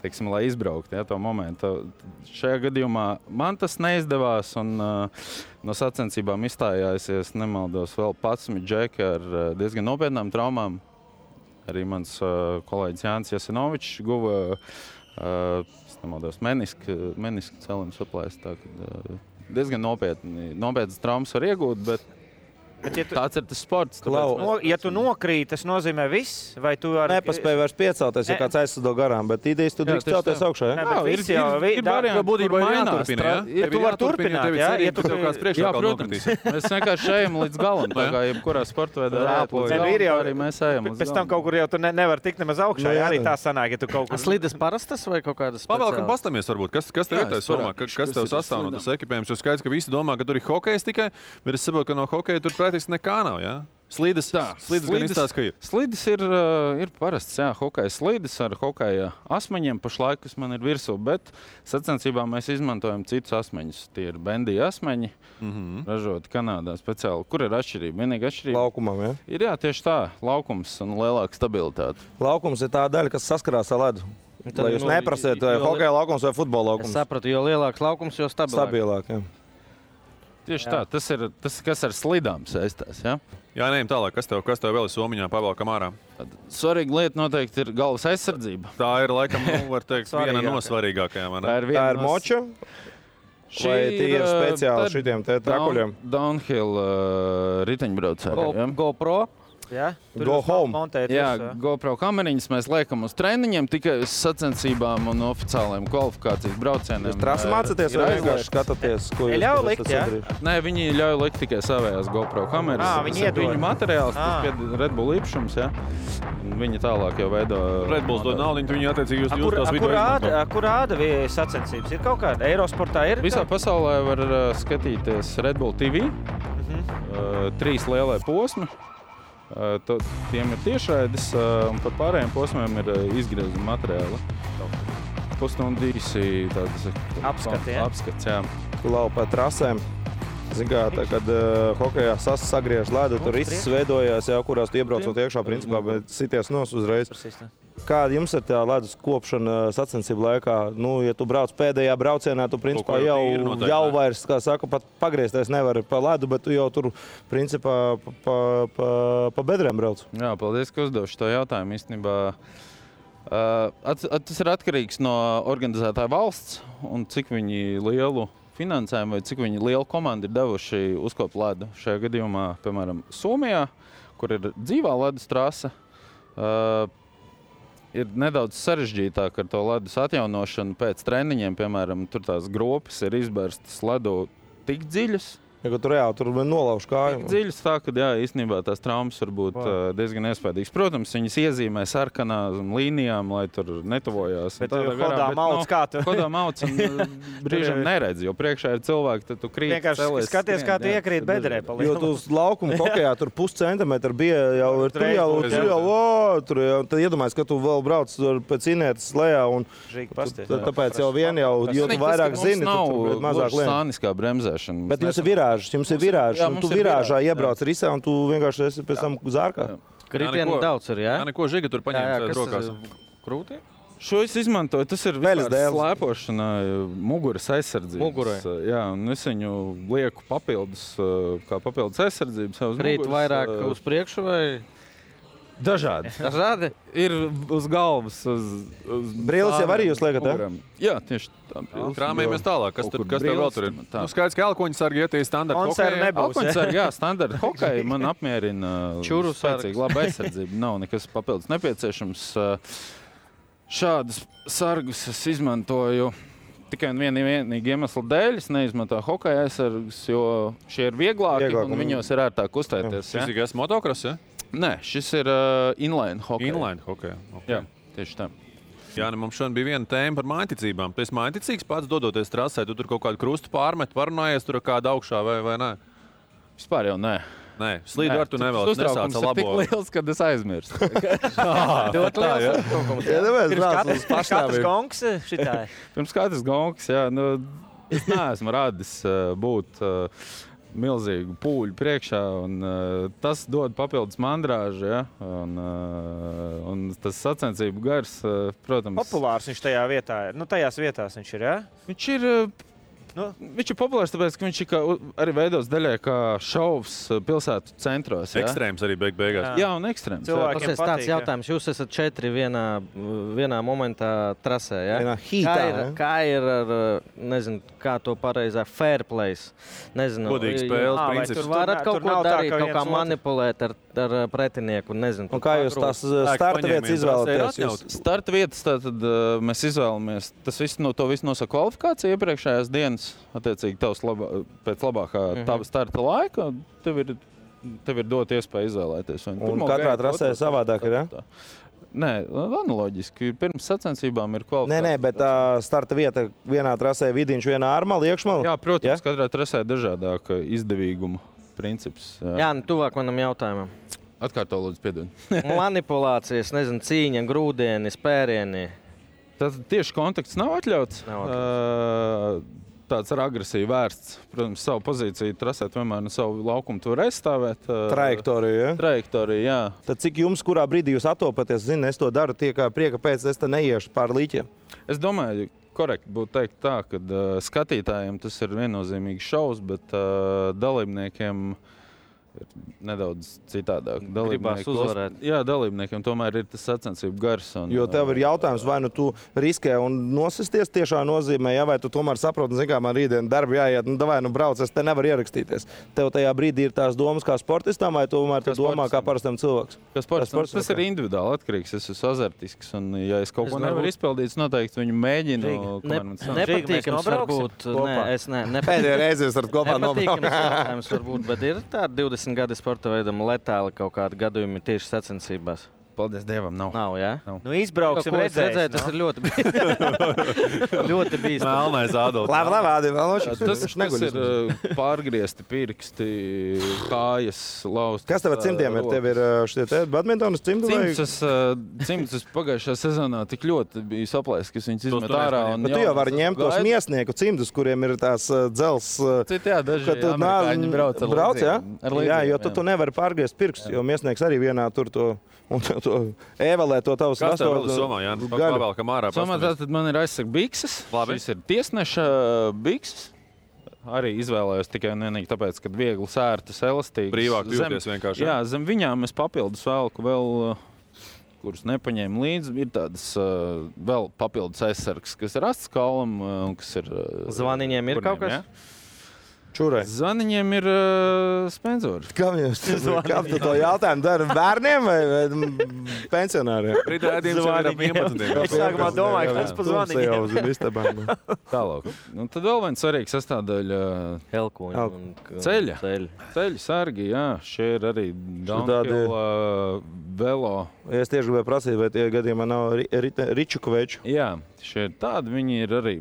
teiksim, lai izbraukt, ja, to momentu. Šajā gadījumā man tas neizdevās un no sacensībām izstājās, ja nemaldos, vēl 11 džeki ar diezgan nopietnām traumām. Arī mans kolēģis Jānis Jasinovičs guva, nemaldos, menisku celiņu saplēst. Diezgan nopietnas traumas var iegūt, bet tāds ir tas sports.
Ja tu nokrīt, tas nozīmē viss? Vai tu
nepaspēji vairs piecelties, ja kāds aizsado garām, bet idejas tu drīkst celties augšā, ja?
Ir varianti,
būtībā ir jāturpina, ja?
Tu vari turpināt, ja?
Ja tu kāds priekšākal nokritīs.
Mēs vienkārši ejam līdz galam, tā kā jebkurā sportveidā arī mēs ejam līdz galam.
Pēc tam kaut kur jau tu nevar tikt nemaz augšā, ja arī tā sanāk, ja tu kaut kur...
Slides parastas vai kaut kādas speciālas?
Pavēlkam pastamies varbūt, kas tev ir tais formā, kas tev sastāv no tas ekipējums, jo skaidrs, ka visi domā, ka tur ir hokejs tikai, bet es saprotu, ka no hokeja tur praktiski nekā nav, jā? Slīdes gan izstāst, ka ir.
Slīdes ir parasts, jā, hokeja slīdes ar hokeja asmeņiem pašlaik, kas man ir virsū, bet sacensībā mēs izmantojam citus asmeņus. Tie ir bendija asmeņi, ražoti Kanādā speciāli. Kur ir atšķirība? Vienīga atšķirība.
Laukumam, ja?
Ir, jā, tieši tā, laukums un lielāka stabilitāte.
Laukums ir tā daļa, kas saskarās ar ledu. Lai jūs neprasiet, vai hokeja laukums vai futbola laukums.
Es sapratu, jo lielāks laukums, jo
stabilāk, jā.
Tieši tā, tas ir tas, kas ar slidām saistās, ja?
Jā, neejam tālāk, kas tev vēl ir somiņā pavēlkam ārā?
Svarīga lieta noteikti ir galvas aizsardzība.
Tā ir, laikam, var teikt, viena no svarīgākajām.
Tā ir moča? Vai tie ir speciāli šitiem te trakuļiem?
Downhill riteņbraucēji, ja?
GoPro?
Ja?
Go home.
Jā, GoPro kameriņas mēs liekam uz treniņiem tikai uz sacensībām un oficiāliem kvalifikācijas braucieniem.
Jūs trasi mācaties vai vienkārši skatāties, ko jūs
ļauj likt, jā?
Nē, viņi ļauj likt tikai savējās GoPro kameras.
Viņi iedod.
Viņu materiāls, tas pie Red Bull īpašums, jā. Viņi tālāk jau veido...
Red Bulls dod naudiņu, viņi attiecīgi jūs tos video izmanto.
Kur rāda sacensības? Ir kaut kāda? Eirosportā ir?
Visā pasaulē var skatīties Red Bull TV. 3 lielie posmi. Tiem ir tiešraides, un par pārējiem posmiem ir izgriezuma materiāli. Pusstundu īsi tādas apskats, jā.
Lau pa trasēm. Zin kā, kad hokejā sagriež ledu, tur viss veidojās, jā, kurās tu iebraucot iekšā, principā, bet sities nos uzreiz. Kāda jums ir tā ledus kopšana sacensību laikā? Nu, ja tu brauc pēdējā braucienā, tu principā jau vairs, kā saka, pat pagriezties nevar pa ledu, bet tu jau tur principā pa bedrēm brauc.
Jā, paldies, ka uzdevuši to jautājumu. Īstenībā tas ir atkarīgs no organizētāja valsts un cik viņi lielu finansējumu vai cik viņi lielu komandu ir devuši uzkopt ledu. Šajā gadījumā, piemēram, Somijā, kur ir dzīvā ledus trase, ir nedaudz sarežģītāk ar to ledus atjaunošanu pēc treniņiem. Piemēram, tur tās gropes ir izbērstas ledu tik dziļas.
Ja, tur nolauž kāju.
Tik dziļas tā, ka jā, īstenībā tās traumas var būt diezgan iespējīgas. Protams, viņas iezīmē sarkanām līnijām, lai tur netuvojās.
Bet hodā mauc kā tu?
Hodā mauc un brīžam neredz, jo priekšā ir cilvēki, tad tu krīt.
Vienkārši skaties, kā tu iekrīt bedrē.
Jo tu uz laukumu hokejā tur puscentimetru bija jau ir tur jau, tad iedomājies, ka tu vēl brauc pēc inētas lejā un tāpēc jau vien jau, jo tu vairāk zini, tu mazāk lien. Bet jums ir virāžs, un tu virāžā iebrauc risā, un tu vienkārši esi pēc tam zārkā.
Kritienu daudz ir, jā?
Jā, neko Žiga tur paņemt rokās.
Krūtī? Šo es izmantoju, tas ir slēpošana, muguras aizsardzības.
Mugurai.
Jā, un es viņu lieku kā papildus aizsardzības.
Krīt vairāk uz priekšu vai?
Dažādi.
Dažādi?
Ir uz galvas, uz
brīlis jau arī jūs liekat,
ja? Jā, tieši tā.
Krāmējamies tālāk. Kas tev vēl tur ir? Nu, skaidrs, ka elkoņu sargi iet standarta hokeja.
Elkoņu sargi, jā, standarta hokeja man apmierina spēcīgi laba aizsardzība. Nav nekas papildus nepieciešams. Šādus sargus es izmantoju tikai un vienīgi iemesla dēļ es neizmantoju hokeja aizsargus, jo šie ir vieglāki un viņos ir ērtāk kustēties.
Šis ir motocross, ja?
Nē, šis ir inline hokeja.
Inline hokeja, okay.
Jā, tieši tā.
Jāni, mums šodien bija viena tēma par mājticībām. Tu esi mājticīgs pats dodoties trasē, tu tur kaut kādu krustu pārmet, parunājies tur kādu augšā vai nē?
Vispār jau nē.
Nē, slīdu ar tu nevēlas nesāca labo.
Tas ir tik liels, kad es aizmirstu.
Ļoti liels. Pirms katrs gongs šitāji.
Pirms katrs gongs, jā. Nu, es neesmu radis būt milzīgu pūļu priekšā, un tas dod papildus mandrāžu, ja? Un tas sacensību gars, protams...
Populārs viņš tajā vietā ir. Nu, tajās vietās viņš ir, ja?
Viņš ir populārs, tāpēc, ka viņš arī veidos daļai kā šovs pilsētu centros. Ja?
Ekstrēms arī beigās.
Jā, un ekstrēms.
Tas ir tāds jautājums. Jūs esat 4 vienā momentā trasē, ja?
Vienā hītā,
kā ir ar, nezinu, kā to pareizā fair place? Nezinu.
Godīgi spēles princips.
Tur varat kaut ko darīt, kaut kā manipulēt ar pretinieku, nezinu.
Un kā jūs tās starta vietas izvēlaties?
Starta vietas tātad mēs izvēlamies. Tas viss to visu nosaka kvalifikācija iepriekšējās dienas. Attiecīgi, pēc labākā tava starta laika, tev ir dot iespēju izvēlēties.
Un katrā trasē savādāk ir, ja?
Nē, analoģiski. Pirms sacensībām ir kvalifikācija.
Nē, bet starta vieta vienā trasē vidiņš, vienā ārmala, iekšmala?
Jā, protams, katrā trasē dažādāk izdevīguma princips.
Jā, nu tuvāk manam jautājumam.
Atkārto lūdzu, piedod.
Manipulācijas, nezinu, cīņa, grūdieni, spērieni.
Tad tieši kontakts nav atļauts. Tāds ar agresiju vērsts. Protams, savu pozīciju trasēt vienmēr no savu laukumu tu var aizstāvēt.
Trajektoriju, ja?
Trajektoriju, jā.
Tad cik jums, kurā brīdī jūs attopaties, es to daru tie kā prieka pēc, es te neiešu pār līķiem?
Es domāju, korekti būtu teikt tā, ka skatītājiem tas ir viennozīmīgs šovs, bet dalībniekiem ir nedaudz citādāk.
Gribās uzvarēt.
Jā, dalībniekiem tomēr ir tas sacensību gars.
Jo tev ir jautājums, vai nu tu riskē un nosisties tiešā nozīmē, ja, vai tu tomēr saproti, zin kā man rītdien darbi jāiet, nu brauc, es te nevaru ierakstīties. Tev tajā brīdī ir tās domas kā sportistam, vai tomēr tu domā kā parastam cilvēks?
Kā sportistam, tas ir individuāli atkarīgs, es esmu azartisks, un ja es kaut ko nevaru izpildīt, noteikti viņu mēģinu.
Nepatīkams varbūt.
Pēdējā reize jūs varat kopā
nepatīkams varbūt, bet ir tāda 20 gadi sporta veidam letāli kaut kādi gadījumi tieši sacensībās.
Paldies Dievam, nav.
Nav, jā?
Nav.
Nu, izbrauksim redzēt,
tas ir ļoti ļoti bīstami.
Melnais Ādolfs.
Labi,
tas ir pārgriezti pirksti, kājas, lausti.
Kas tev ar cimdiem ir? Tev ir šitie badmintonas cimdi?
Cimdus pagājušajā sezonā tik ļoti bija saplēs, ka viņas izmet ārā.
Bet tu jau vari ņemt tos miesnieku cimdus, kuriem ir tās dzels.
Citi, jā, daži amerikāņi brauc,
jā? Jā, jo tu nevari pārgriezt pirkstus, jo miesnieks arī vienā tur to... Un to ēvalē to tavus
vastos. Kas tev vēl somā, Jānis? Pavēlkam ārā.
Somā tātad man ir aizsaka bikses. Šis ir tiesneša bikses. Arī izvēlējos tikai un vienīgi tāpēc, ka viegli sērtas, elastīgas.
Brīvāk jūties vienkārši.
Jā, zem viņām es papildus velku vēl, kurus nepaņēmu līdzi. Ir tādas vēl papildus aizsargs, kas ir asts kaulam, un kas ir...
Zvaniņiem ir kaut kas? Jā?
Čurai.
Zvaniņiem ir spenzori.
Kā tu to jautājumu dara? Bērniem vai pensionāriem?
Rītā ēdījums jau ir ap 11.
Es sākumā domāju, ka tas pa zvaniņiem.
Tālāk. Un tad vēl viens svarīgs sastāvdaļa ceļa. Ceļa sargi, jā. Šie ir arī downhill, velo.
Es tieši gribēju prasīt, vai tie gadījumā nav Ričukoveču.
Jā, šie tādi viņi ir arī.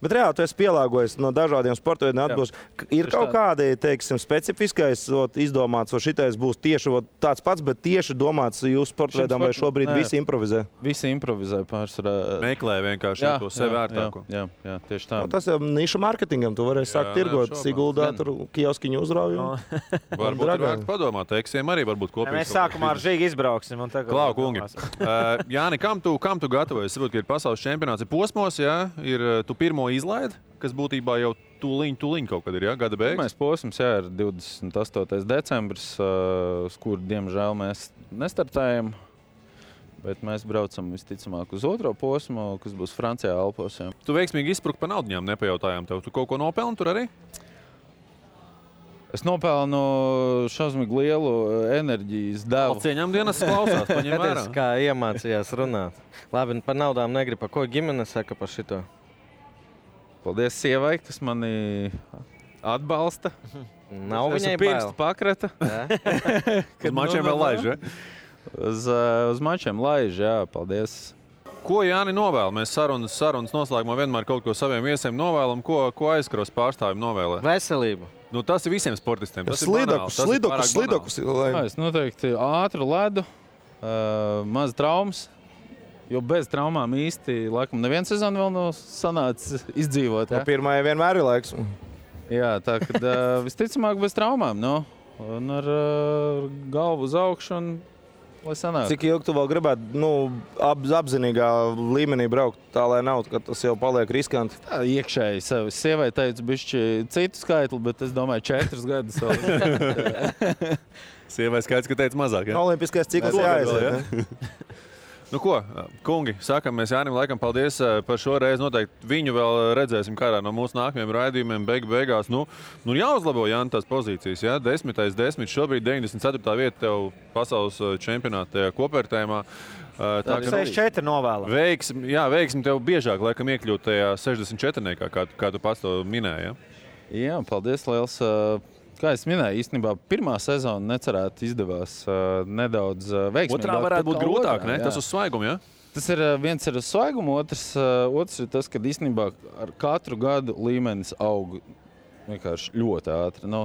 Bet reāli tu esi pielāgojies no dažādiem sporta veidiem atbilst. Ir kaut kādi, teiksim, specifiskais izdomāts, vai šitais būs tieši tāds pats, bet tieši domāts jūsu sporta veidam, vai šobrīd visi improvizē?
Visi improvizē pārsvarā.
Meklē vienkārši to sev vērtāko.
Jā, tieši tā.
Tas jau niša mārketingam, tu varēsi sākt tirgot, Siguldā, tur kioskiņu uzrauju.
Varbūt ir vērts padomāt, eksiem arī varbūt kopīgi.
Mēs sākumā ar Žīgi izbrauksim.
Klau, kungi. Jāni, kam tu gatavojies? Saprot, ka ir pasaules čempionāts, ir posmos, jā, ir tu pirmo izlaidi, kas būtībā jau tūliņ kaut kad ir, jā, gada beigas.
Pirmais posms, jā, ir 28. decembris, uz kuru, diemžēl, mēs nestartējam, bet mēs braucam visticamāk uz otro posmu, kas būs Francijā Alpos. Jā.
Tu veiksmīgi izsprukt pa naudiņām, nepajautājām tev. Tu kaut ko nopelni tur arī?
Es nopelnu šausmīgi lielu enerģijas devu.
Cieņām dienas klausās, paņem vērā.
Kā iemācījās runāt. Labi, par naudām negribu. Ko ģimene saka par šito?
Paldies sievai, kas mani atbalsta.
Nav viņai
pirkstu pakrata.
Uz mačiem vēl laiž, ja?
Uz mačiem laiž, jā, paldies.
Ko Jāni novēl? Mēs sarunas noslēgumā vienmēr kaut ko saviem viesiem novēlam. Ko aizkaros pārstāvjiem novēlē?
Veselību.
Nu, tas ir visiem sportistiem.
Slidokus.
Es noteikti ātru ledu, maz traumas. Jo bez traumām īsti, laikam, neviens sezonu vēl nav sanācis izdzīvot. Ja?
Pirmajai vienmēr ir laiks.
Jā, tā kad visticamāk bez traumām, no? Un ar galvu uz augšu un lai sanāk.
Cik ilgi tu vēl gribētu apzinīgā līmenī braukt, tā lai nav, ka tas jau paliek riskanti?
Tā iekšēji sevi. Sievai teicu bišķi citu skaitli, bet es domāju 4 gadus vēl.
Sievai skaits, ka teica mazāk, ja?
Olimpiskais cikls jāaiziet, ne?
Nu ko, kungi, sakam mēs Jānim laikam paldies par šo reizi. Noteikti viņu vēl redzēsim kādā no mūsu nākamajiem raidījumiem beigās. Nu jāuzlabo, Jāni, tās pozīcijas. Ja? 10. Šobrīd 94. vieta tev pasaules čempionāta kopvērtējumā.
64 novēlam.
Veiksim tev biežāk, laikam, iekļūt tajā 64. kā tu pats to minēji. Ja?
Jā, paldies liels. Kā es minēju, īstenībā pirmā sezona necerēti izdevās nedaudz veiksmīgāk.
Otrā varētu būt grūtāk, ne? Tas uz svaigumu, ja?
Tas ir viens ir uz svaigumu, otrs ir tas, ka īstenībā ar katru gadu līmenis aug vienkārši ļoti ātri.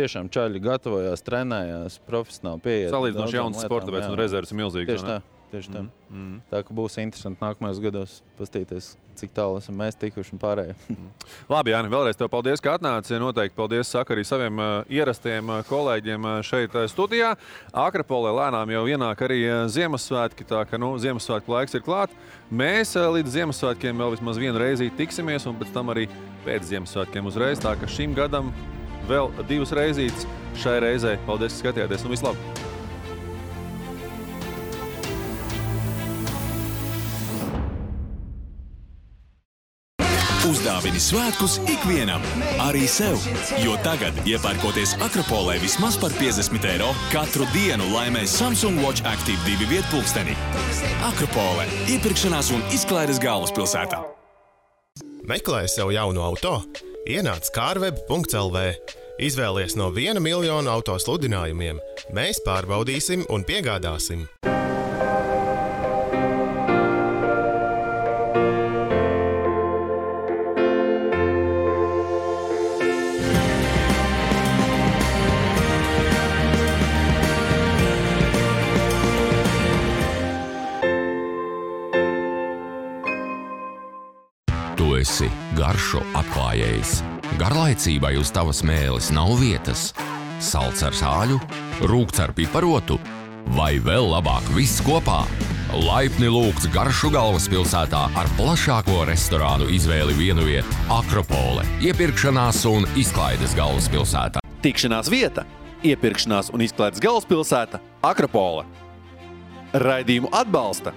Tiešām čaļi gatavojās, trenējās, profesionāli pieiet.
Salīdzinoši jauns sporta veids un rezerves ir milzīgs.
Tieši tā. Tā ka būs interesanti nākamajos gados pastīties, cik tālu esam mēs tikuši un pārējie.
Labi, Jāni, vēlreiz tev paldies, ka atnāci. Noteikti paldies saka arī saviem ierastiem kolēģiem šeit studijā. Akrapolē lēnām jau ienāk arī Ziemassvētki, tā ka Ziemassvētku laiks ir klāt. Mēs līdz Ziemassvētkiem vēl vismaz vienu reizi tiksimies un pēc tam arī pēc Ziemassvētkiem uzreiz. Tā ka šim gadam vēl 2 reizītes šai reizei. Paldies, ka skatījāties un vislabāk!
Uzdāvini svētkus ikvienam, arī sev, jo tagad, iepērkoties Akropolē vismaz par 50 eiro, katru dienu laimē Samsung Watch Active 2 vietpulksteni. Akropolē – iepirkšanās un izklaides galvaspilsētā.
Meklēji sev jaunu auto? Ienāc carweb.lv. Izvēlies no 1 miljonu auto sludinājumiem. Mēs pārbaudīsim un piegādāsim.
Tu esi garšu atklājējs. Garlaicībai uz tavas mēles nav vietas. Salds ar sāļu, rūkts ar piparotu vai vēl labāk viss kopā. Laipni lūgts garšu galvaspilsētā ar plašāko restorānu izvēli vienu vietu Akropole, iepirkšanās un izklaides galvaspilsētā.
Tikšanās vieta, iepirkšanās un izklaides galvaspilsēta Akropole. Raidījumu atbalsta